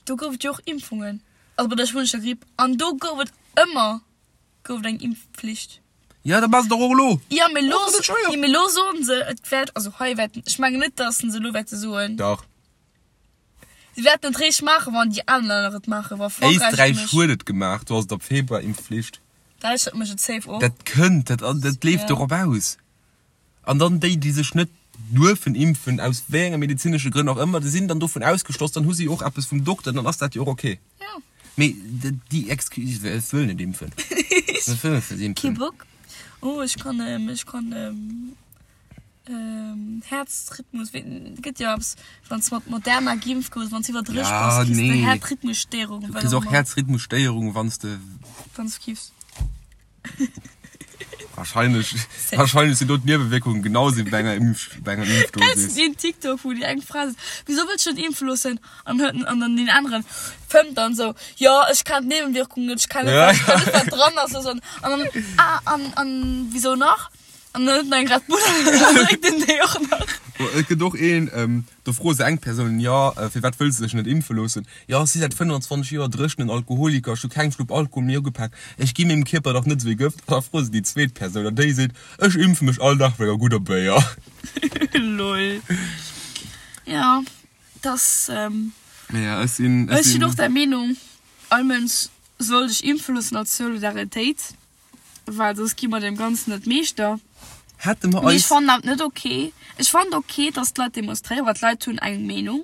Do gouf et jo och Impfungen, also bei der spuenescher Gripp, an do gouf et ëmmer gouf et eng Impfpflicht. Ja, dat maache se dach och elo. Jo, mee elo, Ass dat net schwéier? jo, mee elo soen se, et wäert, also hei wäerten, ech mengen net, datt se elo wäerte soen. Dach. Si wäerten et réischt maachen, wann déi aner Länner et maachen, wa Frankräich et Éisträich mécht. huet et gemaach, do ass et ab Februar Impfflicht. Däitschland mécht et safe och. Dat kënnt, dat, dat leeft Ja. dorop aus. An dann déi, déi sech net duerfen impfen, aus wéi enge medezinesche Grënn och ëmmer, déi sinn dann dovun ausgeschloss, dann hu si och eppes vum Dokter, dann ass dat jo och ok. Ja. Mee déi Excuse, ech wëll net impfen, ech wëll net Kee impfen. Bock? Oh, ech kann, ech kann Häerzrhythmus, wéi, gëtt jo eppes, wann s mat Moderna geimpft goufs, wann s iwwer 30 Ja, bass, kriss de nee. Häerzrhythmusstéierung, Du wat kriss och och ëmmer. Häerzrhythmusstéierung, wann s de. Wann s kiffs. Wahrscheinlech, wahrscheinlech sinn do d'Niewewierkungen genau sou wéi bei enger Impf, bei enger Kennst du Impfdosis. deen TikTok, wou déi eng Fra seet, Wieso wëlls du dech net impfe loossen? An huet an dann deen aneren fëmmt dann sou, Jo, ech kenn d'Nebenwirkungen net, ech kenn net, Ja, wat, ech kenn ja. net, wat dran ass. An dann, ah, an, an wieso nach? An dann huet en eng Red Bull an dann drénkt en déi och nach. Et gëtt och een, do froe se eng Persoun, jo, firwat wëlls de dech net impfe loossen? Jo, ech si säit 25 Joer dréchenen Alkoholiker, ech hu keng Schlupp Alkohol méi ugepak, ech gi mengem Kierper dach net esou ee Gëft. An da froe se déi zweet Persoun an déi seet, ech impfe mech all Dag mat enger gudder Béier. Lol. Jo, dass. Mee jo, ech sinn, ech sinn och der Meenung, all Mënsch soll sech impfe loossen als Solidaritéit. Well soss gi mer deem Ganzen net Meeschter. Hätte mer Mee ech eis. fannen dat net ok. Ech fannen ok, dass d'Leit demonstréieren, well d'Leit hunn eng Meenung.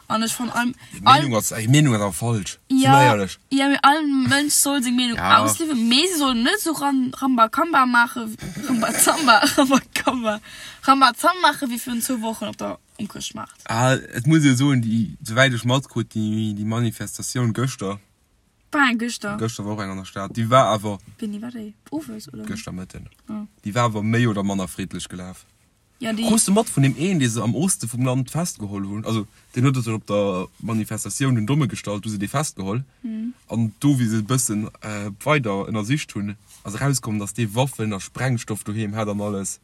An ech fannen all, Déi all. Meenung ass, déi Meenung ass awer falsch. Si Ja, mer éierlech. ja, mee all Mënsch soll seng Meenung Ja. ausliewen, mee se sollen net esou Ram, Rambakamba maachen, Rambazamba, Rambakamba, Rambazamba maachen, wéi virun zwou Wochen op der, um Chrëschtmaart. Ah, et muss ee soen, déi, souwäit ech matkrut, déi, déi Manifestatioun gëschter, War eng gëschter? Gëschter war och eng an der Stad. Déi war awer. Wéini war déi? Owes oder? Gëschter Mëtten. Oh. Déi war awer méi oder manner friddlech gelaf. Ja, déi. Krus de mat vun deem een, dee se am Oste vum Land festgeholl hunn? Also, deen huet sech op der Manifestatioun den Domme gestallt, du se dee festgeholl. An do, wéi se e bëssen weider ënnersicht hunn, ass erauskomm, datt dee Waffen a Sprengstoff doheem hat an alles.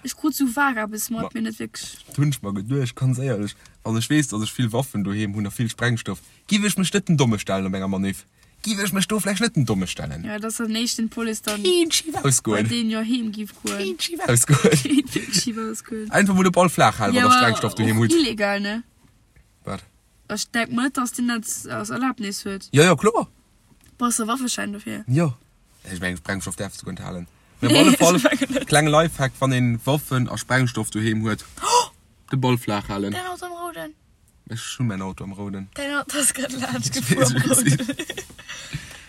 Ech krut sou vag eppes mat, mee net wierklech. Dat hunn ech mer geduecht, ganz éierlech, wann ech weess, datt ech vill Waffen doheem hunn a vill Sprengstoff, giff ech mech net den Domme stellen op enger Maniff. Giff ech mech do vläicht net den Domme stellen. Jo, et ass dann éischt den d'Police dann Kéint schif bei ausgoen. deen jo heem giff goen. Kéint schif ausgoen. Kéint wierklech schif ausgoen. Einfach mol de Ball flaach halen, Jo, wann der Sprengstoff doheem och hutt. illegal, ne? Wat? Ech denk mer net, datt deen dat als Erlaabnis huet. Jo, jo, kloer. Brauchs de Waffeschäin dofir? Jo. Ech mengen Sprengstoff däerfs de guer net halen. Mee op alle Fall, klenge Lifehack, wann een Waffen a Sprengstoff doheem huet, de Ball flaach halen. Däin Auto am Rouden. Ech hunn mäin Auto am Rouden. Däin Auto ass grad laanscht gefuer am Rouden.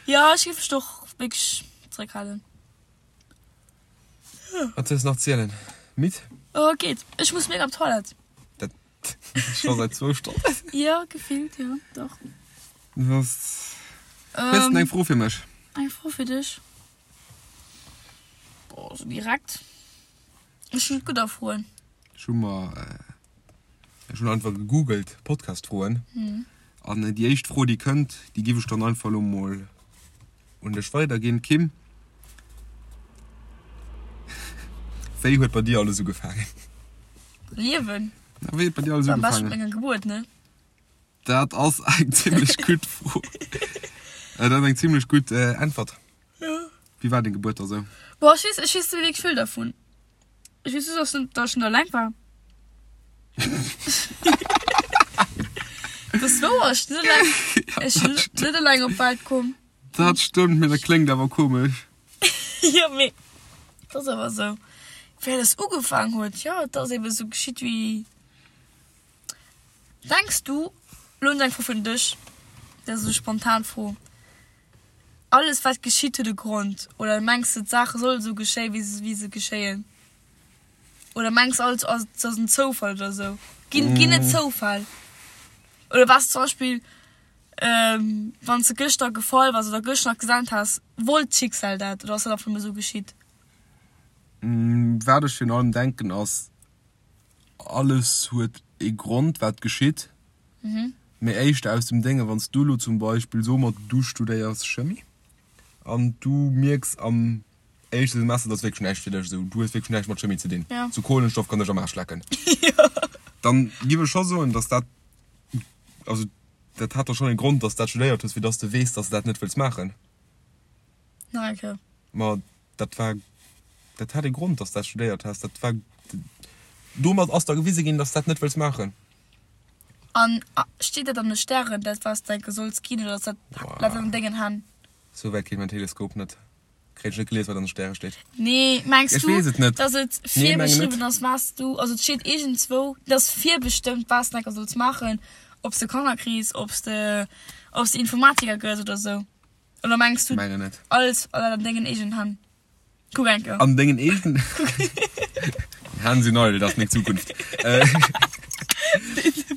Jo, ech géif mech och wierklech zeréckhalen. Wat soll ech nach zielen? Midd? Oh, geet. Ech muss mega op d'Toilette. Dat scho säit zwou Stonnen. Jo, gefillt, jo, dach. Was? Hues de eng Fro fir mech? Eng Fro fir dech? Boah, sou direkt? Ech hunn net gutt a Froen. Ech hu mer, ech hunn einfach gegoogelt, Podcast-Froen. An déi éischt Fro, déi kënnt, déi giff ech dann einfach elo mol un dech weiderginn. Kim, wéi huet bei dir alles ugefaangen? Liewen? Na, wéi huet bei dir alles Am beschten ugefaangen? mat menger Gebuert, ne? Dat ass eng zimlech gutt Fro. Dat ass eng zimlech gutt Äntwert. Ja. Wéi war deng Gebuert da sou? Boah, ech weess, ech weess net méi wierklech vill dervun. Ech weess just, dass, dass ech net eleng war. Dat ass wouer, ech sinn net eleng, ech sinn net eleng op d'Welt komm. Dat stëmmt, mee dat kléngt awer komesch. Jo, mee dat ass awer sou. Wéi alles ugefaang huet, jo, et ass ebe sou geschitt wéi. Denks du, lo hunn ech eng Fro fir dech, dat ass esou spontan Fro, alles wat geschitt huet e Grond oder mengs de d'Saache solle sou geschéien wéi se wéi se geschéien? Oder mengs alles ass et ass en Zoufall oder sou? Ginn ginn et Zoufäll? Oder waars zum Beispill wann s de gëschter gefall waars oder gëschter nach gesent has, wollt d'Schicksal dat oder ass dat einfach nëmme sou geschitt? Wat ech virun allem denken ass, Alles huet ee Grond wat geschitt, mee éischter aus dem Dénge wann s du elo zum Beispill, soe mer du studéiers Chemie an du mierks am éischte Semester, dat ass wierklech näischt fir dech, esou du hues wierklech näischt mat Chemie ze dinn, sou Kohlenstoff kann dech am Aarsch lecken, dann giff ech scho soen, dass dat, also dat hat da schonn ee Grond, dass s dat studéiert hues, fir dass de weess, dass de dat net wëlls maachen. Nach eng Kéier. Ma dat war, dat hat ee Grond, dass dat studéiert has. Dat war, domat ass der gewise ginn, dass dat net wëlls maachen. An steet dat an de Stären, dat wat s de enke solls ginn, oder ass dat, läit dat an dengen Hänn? Sou wäit geet mäin Teleskop net. Kréien ech net gelies, wat an de Stäre steet. Nee, mengs Ech du, weess et net. dass et Nee, mengen net. virbeschriwwen ass, wat s du, also et steet iergendzwou, et ass virbestëmmt, wat s de enke solls maachen, ob s de Kanner kriss, ob s de, ob s de Informatiker gëss oder sou? Oder mengs du Mengen net. alles an dengen eegenen Hänn? Kuck eng Kéier. An dengen eegenen Hänn sinn eidel, dat ass meng Zukunft.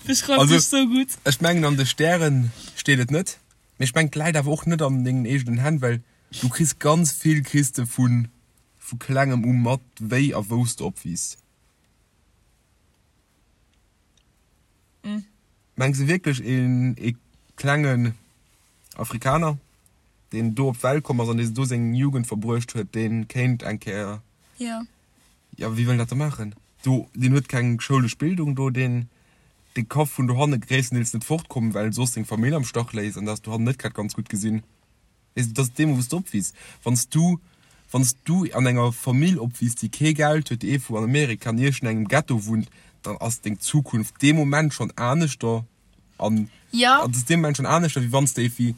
Beschreift Also, dech sou gutt. Ech mengen an de Stären steet et net, mee ech mengen et läit awer och net an dengen eegenen Hänn, well du kriss ganz vill kriss de vu. vu klengem u mat, wéi a wou s de opwiisst. Mengs de wierklech een ee klengen Afrikaner, deen do op d'Welt komm ass an dee do seng Jugend verbruecht huet, dee kéint eng Kéier. Jo. Jo, wéi wëll en dat da maachen? Do, deen huet keng schoulesch Bildung do, deen, dee ka vun dohanne gréisstendeels net fortkommen, well en soss seng Famill am Stach léisst an dat ass dohannen net grad ganz gutt gesinn. Weess de, dat ass deemol, wou s de opwiisst. Wann s du, wann s du an enger Famill opwiisst, déi kee Geld huet, déi iergendwou an Amerika an iergendengem Ghetto wunnt, dann ass deng Zukunft dee Moment schonn aneschter an Ja. ass dee Moment schonn aneschter, wéi wann s de iergendwéi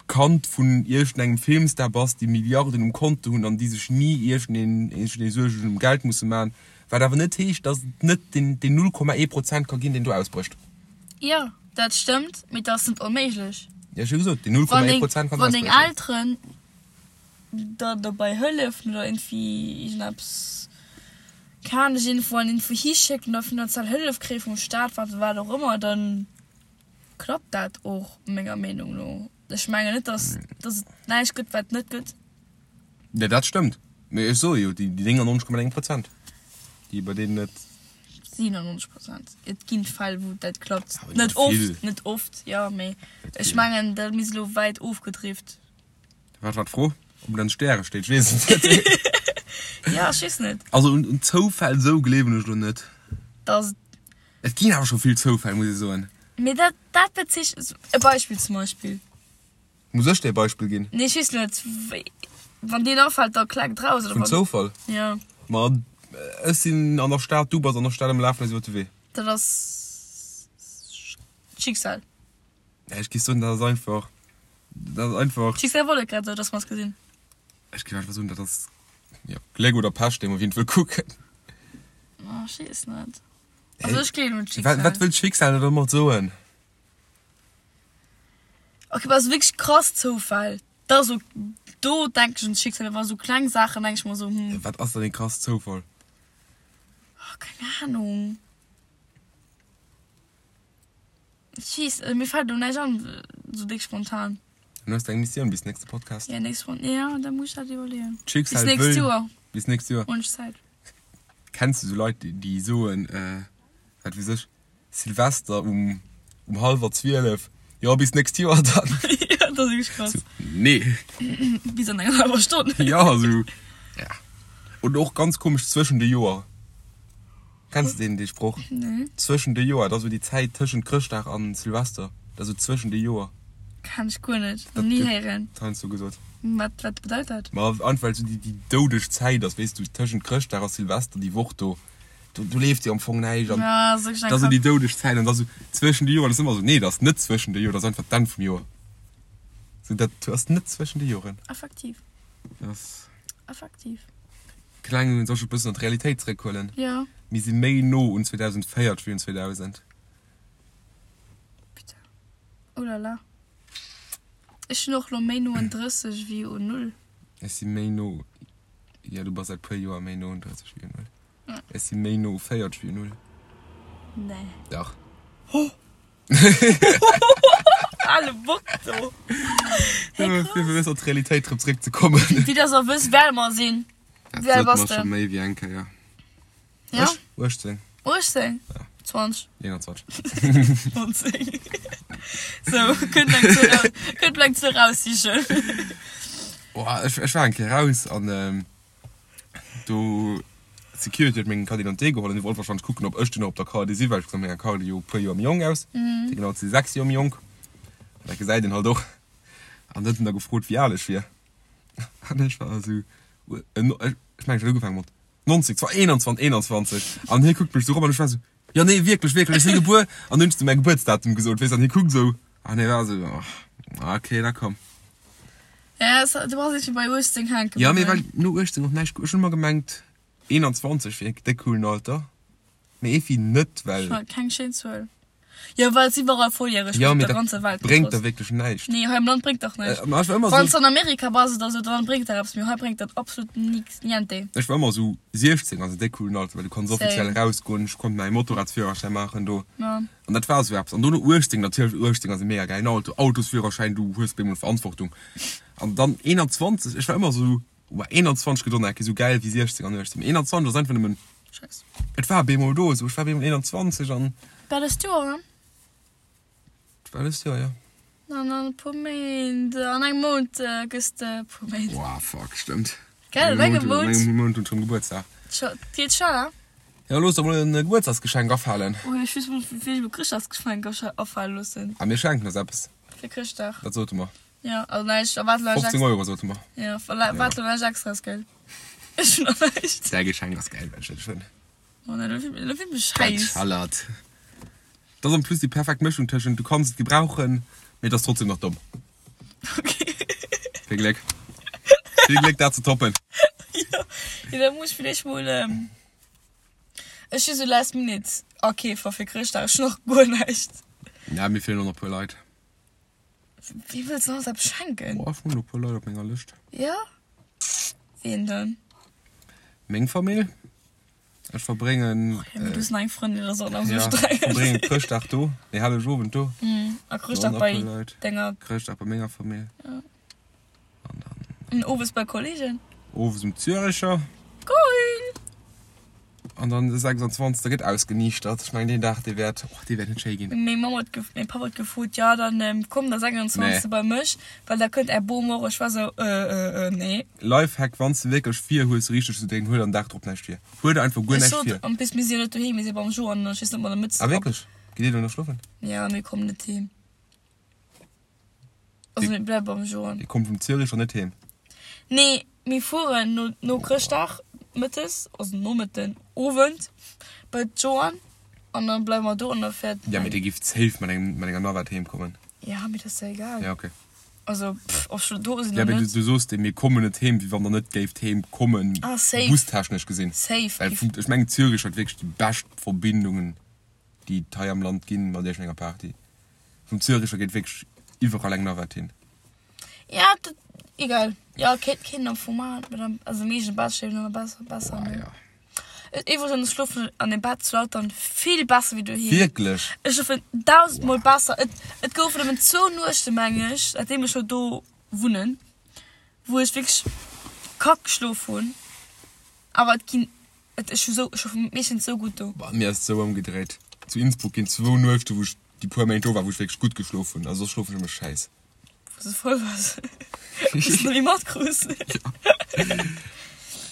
d'Kand vun iergendengem Filmstar bass, déi Milliarden um Konto hunn an déi sech ni iergendeen, iergendee Suergen ëm Geld musse maachen. Wat awer net heescht, datt et net deen, deen 0,1 Prozent ka ginn, deen do ausbrécht. Jo, dat stëmmt, mee dat ass net onméiglech. Jo, ech hu gesot, déi 0,1 Prozent kann Wann deng Elteren der dobäi hëllefen oder iergendwéi iergendeppes, keng Ahnung, dech iergendwou an iergendwou hischécken oder finanziell Hëllef kréie vum Staat, wat wat och ëmmer, da klappt dat och menger Meenung no. Ech mengen net, dass dass et näischt gëtt, wat net gëtt. Jo, dat stëmmt. Mee ech soe jo, déi 99,9 Prozent, déi bei deenen et. 97 Prozent. Et ginn Fäll, wou dat klappt. Net oft, net oft, jo, mee ech mengen, dat mir si lo wäit ofgedrift. Wat war d'Fro? Ob et an de Stäre steet? Ech weess et net. Jo, ech weess net. Also un Zoufäll esou gleewen ech lo net. Dass et. Et ginn awer scho vill Zoufäll, muss ech soen. Mee dat, dat bezeechent, e Beispill zum Beispill. Muss ech dir e Beispill ginn? Nee, ech weess net. Wann deen afält, da kleckt raus, oder? Vun Zoufall? Jo. Ma ech sinn an der Stad, du bass an der Stad a mir lafen eis iwwer de Wee. Dat ass Schicksal. Nee, ech géif soen, dat ass einfach, dat ass einfach. D'Schicksal wollt et grad esou, dass mer eis gesinn. Ech géif einfach soen, dat ass, jo, Gléck oder Pech, deemno wien et wëll kucken. Oh, ech weess net. Also ech gleewen un d'Schicksal. Wat wëll d'Schicksal der domat soen? Ok, ass wierklech krass Zoufäll. Da so, do denken ech un d'Schicksal, awer sou kleng Saachen denke ech mer sou, hm. Wat ass dann ee krass Zoufall? Oh, keng Ahnung. Ech weess, mir fält elo näischt an, sou déck spontan. Dann hues de eng Missioun bis nächste Podcast. Ja, nächst Spon, ja, da muss ech dat iwwerleeën. D'Schicksal Bis nächst wëll. Joer. Bis nächst Joer. Hunn ech Zäit. Kenns du sou Leit, déi soen, wat weess ech, Silvester um um hallwer 12, jo bis nächst Joer dann. Jo, dat ass wierklech krass. Sou, nee. Bis an enger hallwer Stonn. Jo, sou, ja. Oder och ganz komesch, zwëschen de Joer. Kenns de deen, dee Sproch? Nee. Zwëschen de Joer, dat ass sou déi Zäit tëschent Chrëschtdag an Silvester, dat ass sou zwëschen de Joer. Kenn ech guer net, nach ni héieren. Dat gëtt heiansdo gesot. Wat, wat bedeit dat? Ma einfach well sou déi, déi doudeg Zäit ass, weess du, tëschent Chrëschtdag a Silvester, déi Woch do. Do, do leeft jo am Fong näischt an Ja, ass wierklech eng dat ass esou déi Kack. doudeg Zäit an da sou zwëschen de Joren ass ëmmer sou, nee, dat ass net zwëschen de Joren, dat ass einfach d'Enn vum Joer. Sou dat ass net zwëschen de Joren. Effektiv. Dat ass. Effektiv. Kleng, soll ech e bëssen an d'Realitéit zeréckhuelen? Jo. Mir si méi no un 2040 wéi un 2000. Putain. Oh là là. Ech sinn och lo méi no un 30 wéi un null. Ech si méi no, jo, du bass säit puer Joer méi no un 30 wéi un null. Ech si méi no u 40 wéi u 0. Nee. Dach. Ale Bock do. Hey, krass. Fir bëssen an d'Realitéit erëm zeréck ze kommen. Wéi dass der wësst, wéi al mer sinn. Dat Wéi al sot bass mer de? scho méi wéi eng Kéier. Ja? Ech? 18. 18? Ja. 20. 21. 19. Sou, kënnt eng Zuel raus, kënnt eng Zuel raussichen. Oh, ech, ech war eng Kéier raus an Do d'Security huet meng Carte d'identité geholl an déi wollt wahrscheinlech kucken, ob ech dunn och op der Carte si, well ech gesinn op menger Carte jo e puer Joer méi jonk aus. Fir genau ze si 6 Joer méi jonk. An dat gesäit een halt och. An huet en da gefrot, wéi al ech wier. An ech war esou, ech mengen ech hat ugefaange mat 90, zwar 21, 21. An hie kuckt mech esou erop an ech war esou, jo nee wierklech, wierklech, ech si gebuer. An dunn hunn ech esou mäi Gebuertsdatum gesot, weess, an hie kuckt esou an hie war esou, okay, da komm. Ja, es, du bass irgendwie bei 18 hänke Ja, mee well no 18 och näischt, ech hunn ëmmer gemengt 21 wier déck coolen Alter, mee efi net, well. Ech keng schéin Zuel. Jo, well et iwwerall volljäreg Ja, gëtt, op mee der dat ganzer Welt bréngt der wierklech näischt. Nee, hei am Land bréngt dach näischt. Äh, ech war ëmmer Wann s sou. an Amerika bass oder sou, dann bréngt dat eppes, mee hei bréngt dat absolut nix, niente. Ech war ëmmer sou 16 ass en déck coolen Alter, well du kanns offiziell Same. erausgoen, ech konnt mäi Motorradsführerschäin maachen do. Ja. An dat war esou eppes. An dono 18, natierlech 18 ass e mega gäilen Auto, Autosführerschäin, du hues op eemol Verantwortung. An dann 21, ech war ëmmer esou. Wow, 21 gëtt och nach eng Kéier esou gäil wéi 16 an 18. Mee 21 ass einfach nëmmen. Scheiss. Et war bemol do esou. Ech war bemol 21 an. War dëst Joer, ne? Et war dëst Joer, jo. An an e puer Méint, an engem Mount gëss de e puer Méint. Wow, fuck, stëmmt. Gell, an engem Mount. An engem Mount hunn ech rëm Gebuertsdag. Et geet schnell, hein? Jo, looss der mol en Gebuertsdagsgeschenk afalen. Oh, ech weess mol, wéi ech mol Chrëschtdagsgeschenk afale loossen. Ah, mir schenken eis eppes. Fir Chrëschtdag. Wat sote mer? Jo, also näischt, erwaart elo näischt 15 Euro sote mer. Jo, erwaart elo näischt Extraes, gell? Ech hunn nach näischt. Däi Geschenk ass gäil, well ech dat hunn. Oh nein, elo fillt mech Dat schäiss. schallert. Dat ass en plus déi perfekt Mëschung tëschent du kanns et gebrauchen, mee et ass trotzdem nach domm. Okay. Vill Gléck. Vill Gléck dat ze toppen. Jo, jo, da muss ech villäicht mol, ech si sou last minute Akeefer fir Chrëschtdag, ech hunn nach guer näischt. Ja, mir feelen och nach e puer Leit. Wee wëlls de alles eppes schenken? Boah, ech hunn e puer Leit op menger Lëscht. Jo? Ween dann? Meng Famill. Ech verbréngen. Oh, ja, mee du hues nach eng Frëndin, dat ass och nach esou streng. Ja, verbréngen Chrëschtdag do, nee, Hellegowend do. A Chrëschtdag bei denger. Chrëschtdag bei menger Famill. Ja. An dann. An owes bei Kollegen? Owes um Züricher. Geil! An dann de 26. gëtt ausgeniichtert. Ech mengen deen Dag, dee wäert, och dee wäert net schéi ginn. Meng Mamm huet, mäi Papp huet gefrot, jo dann komm der 26. bei mech, well da kënnt är Bom och. Ech war sou, äh, äh, nee. Lifehack, wann s de wierklech vir hues richteg ze drénken, huel der den Dag drop näischt vir. Huel der einfach guer Ech näischt sot, vir. en plus mir si jo net doheem, mir si beim Jo an ech weess net, ob mer der Mëtz Ah wierklech? Gitt dir do nach schlofen? Jo, mir kommen net heem. Also mir bleiwe beim Joan. Dir kommt vum Züricher net heem? Nee, mir fueren no, no Chrëschtdag mëttes, also Nomëtten, Owend bei d'Joan an dann bleiwe mer do an da fäert. Ja, mee dir gifft safe mat engem, mat enger Navette heem kommen. Ja, mee dat ass jo egal. Ja, okay. Also, pff, ob ech lo do sinn Ja, oder mee du, net. du soos dee, mir kommen net heem, wéi wann der net géift heem kommen, Ah, safe. bustechnesch gesinn. Safe. Well vum, ech mengen Zürich huet wierklech déi bescht Verbindungen, déi et hei am Land ginn, mat iergendenger Party. Vum Züricher geet wierklech iwwerall eng Navette hin. Ja, dat, egal. Ja, kéint, kéint am Fong maachen, mee dann, also am eegene Bett schlofen ass besser, besser, Boah, ne? ja. Iwwregens schlofen an dem Bett zu Lautern vill besser wéi doheem. Wierklech? Ech schlofen dausendmol besser. Et, et goufen nëmmen zwou Nuechten, meng ech, säitdeem ech lo do wunnen, wou ech wierklech kack geschlof hunn. Awer et ginn Et ech hu sou, ech hu meeschtens sou gutt do. Bei mir ass et sou ëmgedréit. Zu Innsbruck ginn zwou Nuechte wou ech déi puer Méint do war, wou ech wierklech gutt geschlof hunn. A soss schlofen ech ëmmer schäiss. Wou s de voll waars, wou s de net méi matkruus.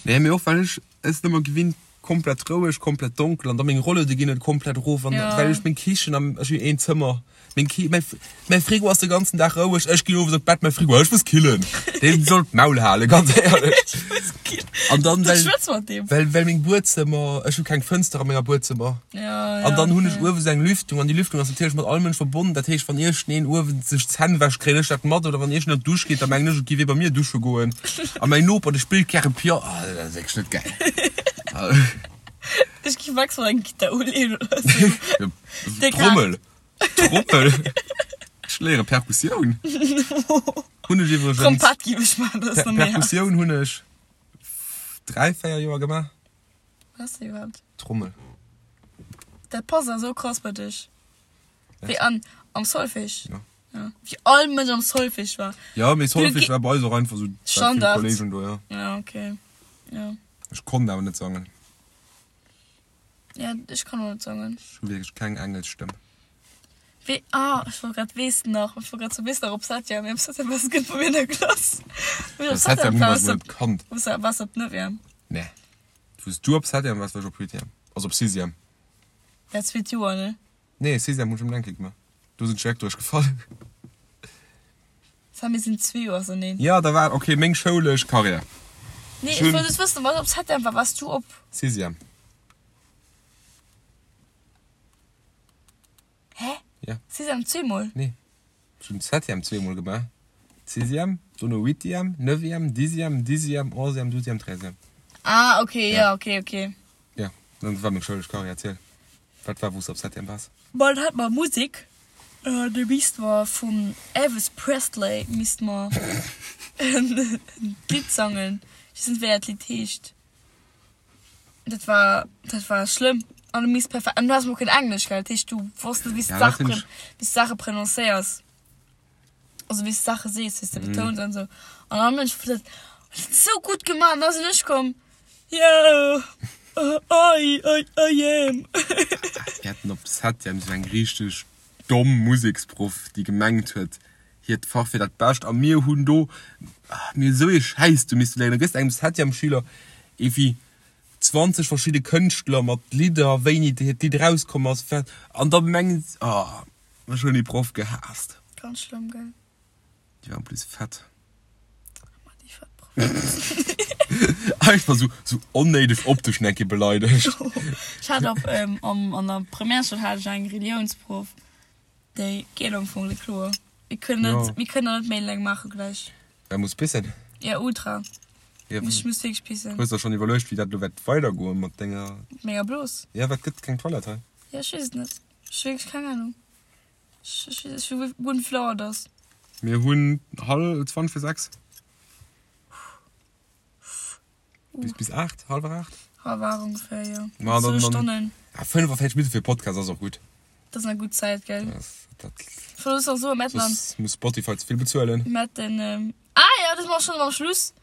Nee, mee och well ech es net méi gewinnt, komplett roueg, komplett donkel an da meng Rolluede ginn net komplett erof an well ech meng Kichen am, ech hunn een Zëmmer. Meng Ki, mäi, mäi Frigo ass de ganzen Dag roueg, ech ginn owes op d'Bett, mäi Frigo, ech muss killen. Deen soll d'Maul halen, ganz éierlech. Ech muss killen. An dann, Du well, schwätz mat deem. well, well meng Buedzëmmer, ech hu keng Fënster a menger Buedzëmmer. Ja, ja, An dann hunn ech okay. uewe sou eng Lüftung an déi Lüftung ass natierlech mat all Mënsch verbonnen. Dat heescht, wann iergendeen uewen sech d'Zänn wäscht, kréien ech dat mat. Oder wann iergendeen an d'Dusch geet, da mengen ech, et géif ee bei mir dusche goen. A mäin Noper, dee spillt gäre Piano. Ah, dat ass wierklech net gäil. Ech géif maximal eng Gittar uleeën oder sou. Déck Trommel. Trommel? Ech léiere Perkussioun. Hunn ech iwwregens. Trompett giff ech maachen, dat ass nach méi haart. Perkussioun hunn ech 3, 4 Joer gemaach. Wat ass dat iwwerhaapt? Trommel. Dat passt awer sou krass bei dech. Wéi an am Solfège. Ja. Ja. Wéi all Mënsch am Solfège war. Ja, mee Solfège war bei eis och einfach sou Standard. Kollegen do, ja. Ja, okay. Ja. Ech konnt awer net sangen. Ja, ech kann och net sangen. Ech hu wierklech keng Engelsstëmm. Wee, ah, ech wollt grad weess de nach, ech wollt grad soen, weess de nach op Septième, mee op Septième waars de gutt bei mir an der Klass. Op Septième hu mer eis net kannt. Waars de op Neuvième? Nee. Wou s du op Septième waars, war ech op Huitième. Also op Sixième. Dat zweet Joer, ne? Nee, Sixième hunn ech um Lenke gemaach. Do sinn ech direkt duerchgefall. Sam, mir sinn zwee Joer auserneen. Ja, da war, okay, meng schoulesch Karriär. Nee, ech wollt just wëssen, wat op Septième war. Waars du op? Sixième. Hä? Ja. Sixième zweemol? Nee, ech hunn Septième zweemol gemaach. Sixième, dono Huitième, Neuvième, Dixième, Dixième, Onzième, Douzième, Treizième. Ah, okay, ja, okay, okay. Ja, dat war meng schoulesch Karriär. Erziel. Wat war wou s de op Septième waars? Bon, dann hat mer Musek, do misste mer vum Elvis Presley misste mer en Lidd sangen, ech weess net wéi dat Lidd heescht, dat war dat war schlëmm an du misst perfekt an du has mol keen Englesch gell, dat heescht du wosst net wéi s de d'Saache wéi s de d'Saache prononcéiers, also wéi s de d'Saache sees, wéi s de betouns an esou an all Mënsch huet. Sou gutt gemaach an da sinn ech komm, yeah, I, I, I am. Mir haten op Septième sou eng richteg domm Museksproff, déi gemengt huet, hiert Fach wier dat bescht a mir hunn do, mir hunn esou ee Schäiss do misste léieren. Da gëss de engem Septième-Schüler ewéi 20 verschidde Kënschtler mat Lidder, wéini hiert Lidd erauskomm ass, an da mengen se, oh, ech hunn déi Proff gehaasst. Ganz schlëmm, gell? Déi war en plus fett. Einfach sou, sou onnéideg optesch nach eng Kéier beleidegt. Ech hat op, ähm, am, an der Primärschoul hat ech eng Reliounsproff, déi geet am Fong net kloer. Mir kënnen net, Ja. mir kënnen net méi laang maache gläich. Wer muss pissen? Ja, ultra. Ja, Ech muss wierklech pissen. Hues der schonn iwwerluecht, wéi dat elo wäert weidergoen mat denger. Mat menger Blos? Ja, wat gëtt keng Toilette hei? Ja, ech weess et net. Ech hu wierklech keng Ahnung. Ech weess net guer net wéi vill Auer et ass. Mir hunn hal 20 vir 6. Bis, bis 8, hallwer 8? Hallwer 8 ongeféier, jo. Ma dann, Zwou dann, Stonnen. ja, 45 Minutten fir e Podcast ass och gutt. Dat ass eng gutt Zäit, gell? Dat, dat, Ech muss och soen, mir hätten an, soss muss Spotify ze vill bezuelen. mir hätten, ah jo, dat ass mer schonn am Schluss.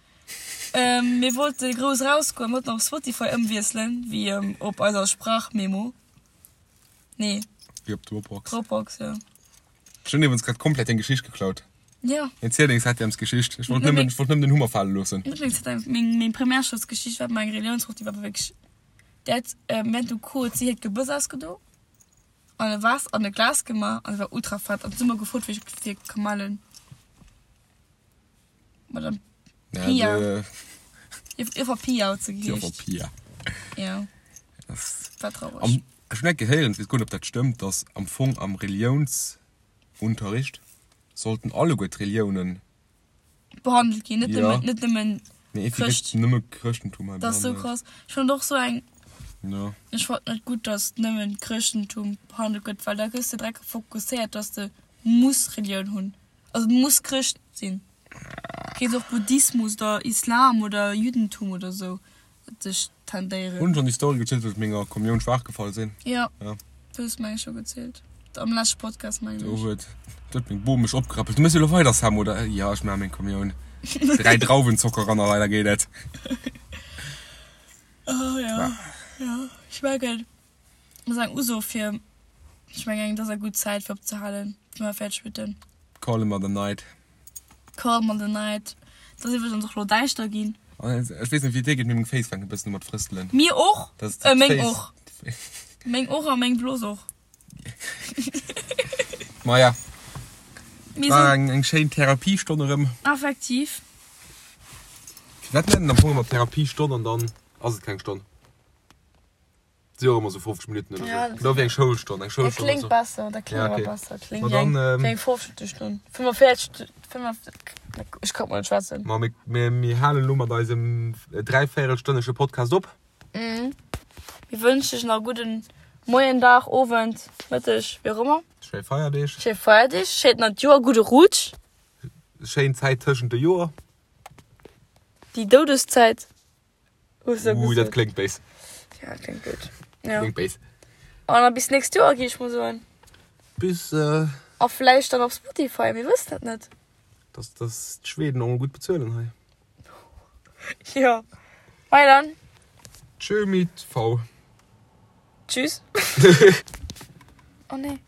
Mir wollte grouss rausgoen, mir wollten op Spotify ëmwiesselen, wéi op eiser Sprachmemo. Nee. Wéi op Dropbox. Dropbox, jo. Ech hunn iwwregens grad komplett deng Geschicht geklaut. Jo. Erziel deng Septièmesgeschicht. Ech wollt nëmmen, ech wollt nëmmen den Hummer fale loossen. Net meng Septièmes, meng, meng Primärschoulsgeschicht war meng Reliounsproff, déi war wierklech, déi hat während dem Cours huet si hiert Gebëss ausgedo an e Vase an e Glas gemaach an et war ultra fett an si hu mer gefrot, wéi ech fir Kamellen. Madame Pia. Joffer Pia huet se geheescht. Joffer Pia. Ja. War traureg. Am, ech hunn eng gehéieren, ech weess guer net, ob dat stëmmt, dass am Fong am Reliounsunterricht sollten alleguer d'Reliounen. Behandelt ginn, net Ja. nëmmen, net nëmmen Nee, iergendwéi Chrëscht. gëtt nëmme Chrëschtentum hei Dat ass sou behandelt. krass. Ech fannen och sou eng, Ja. ech fannen net gutt, dass nëmmen Chrëschtentum behandelt gëtt, well da gëss de direkt fokusséiert, dass de muss Relioun hunn. Also du muss Chrëscht sinn. Kéint och Buddhismus oder Islam oder Juddentum oder sou dech tendéieren. Hunn schon déi Story gezielt wou ech menger Kommioun schwaach gefall sinn? Jo, Ja. du hues meng ech scho gezielt. Am leschte Podcast mengen Do ech. huet do huet meng Bom mech opgerappelt. Du méchs jo elo weider Sam oder? Jo ech maache meng Kommioun. 3 Drauwenzocker ran a weider geet et. Oh jo, jo ech mengen et ass eng Uso fir, ech mengen et ass eng gutt Zäit fir opzehalen, wa mer fäerdeg witten. Call em the night. Call em the night. Et ass iwwregens och elo däischter ginn. Ech weess net wéi et dir geet, mee meng Féiss fänken e bëssen u mat frëstelen. Mir och! Dat ass Äh, meng d'Féiss. och. Meng och a meng Blos och. Maja, Mir war sinn eng, eng schéin Therapiestonn erëm. effektiv. Firwat nennen am Fong ëmmer Therapiestonn an dann ass et keng Stonn? Si och ëmmer sou 50 Minutten oder Ja, sou. Genau wéi eng Schoulstonn. Eng Dat Schoulstonn kléngt ass besser, dat kléngt Ja, awer okay. besser. Kléngt Ma wéi eng, dann, ähm, wéi eng 50 Stonn. 45, 45, ech kann mol net schwätzen. Ma mir, mir, mir halen elo mat eisem dräivéierelstënnesche Podcast op. Mhm. Mir wënschen iech nach e gudden Moien, Dag, Owend, Mëtteg, wéi och ëmmer. Schéi Feierdeeg. Schéi Feierdeeg, schéint neit Joer, gudde Rutsch. Schéin Zäit tëschent de Joer. Déi Doudeszäit. Hues du Uh, dat gesot. kléngt béis. Ja, kléngt gutt. Ja. Kléngt béis. An da bis nächst Joer, gi ech mol soen. Bis, äh. A vläicht dann op Spotify, mir wëssen et net. Dass, dass d'Schweden och mol gutt bezuelen hei. Jo. Bye dann. Tschö mit V. Tschüss. Oh nee.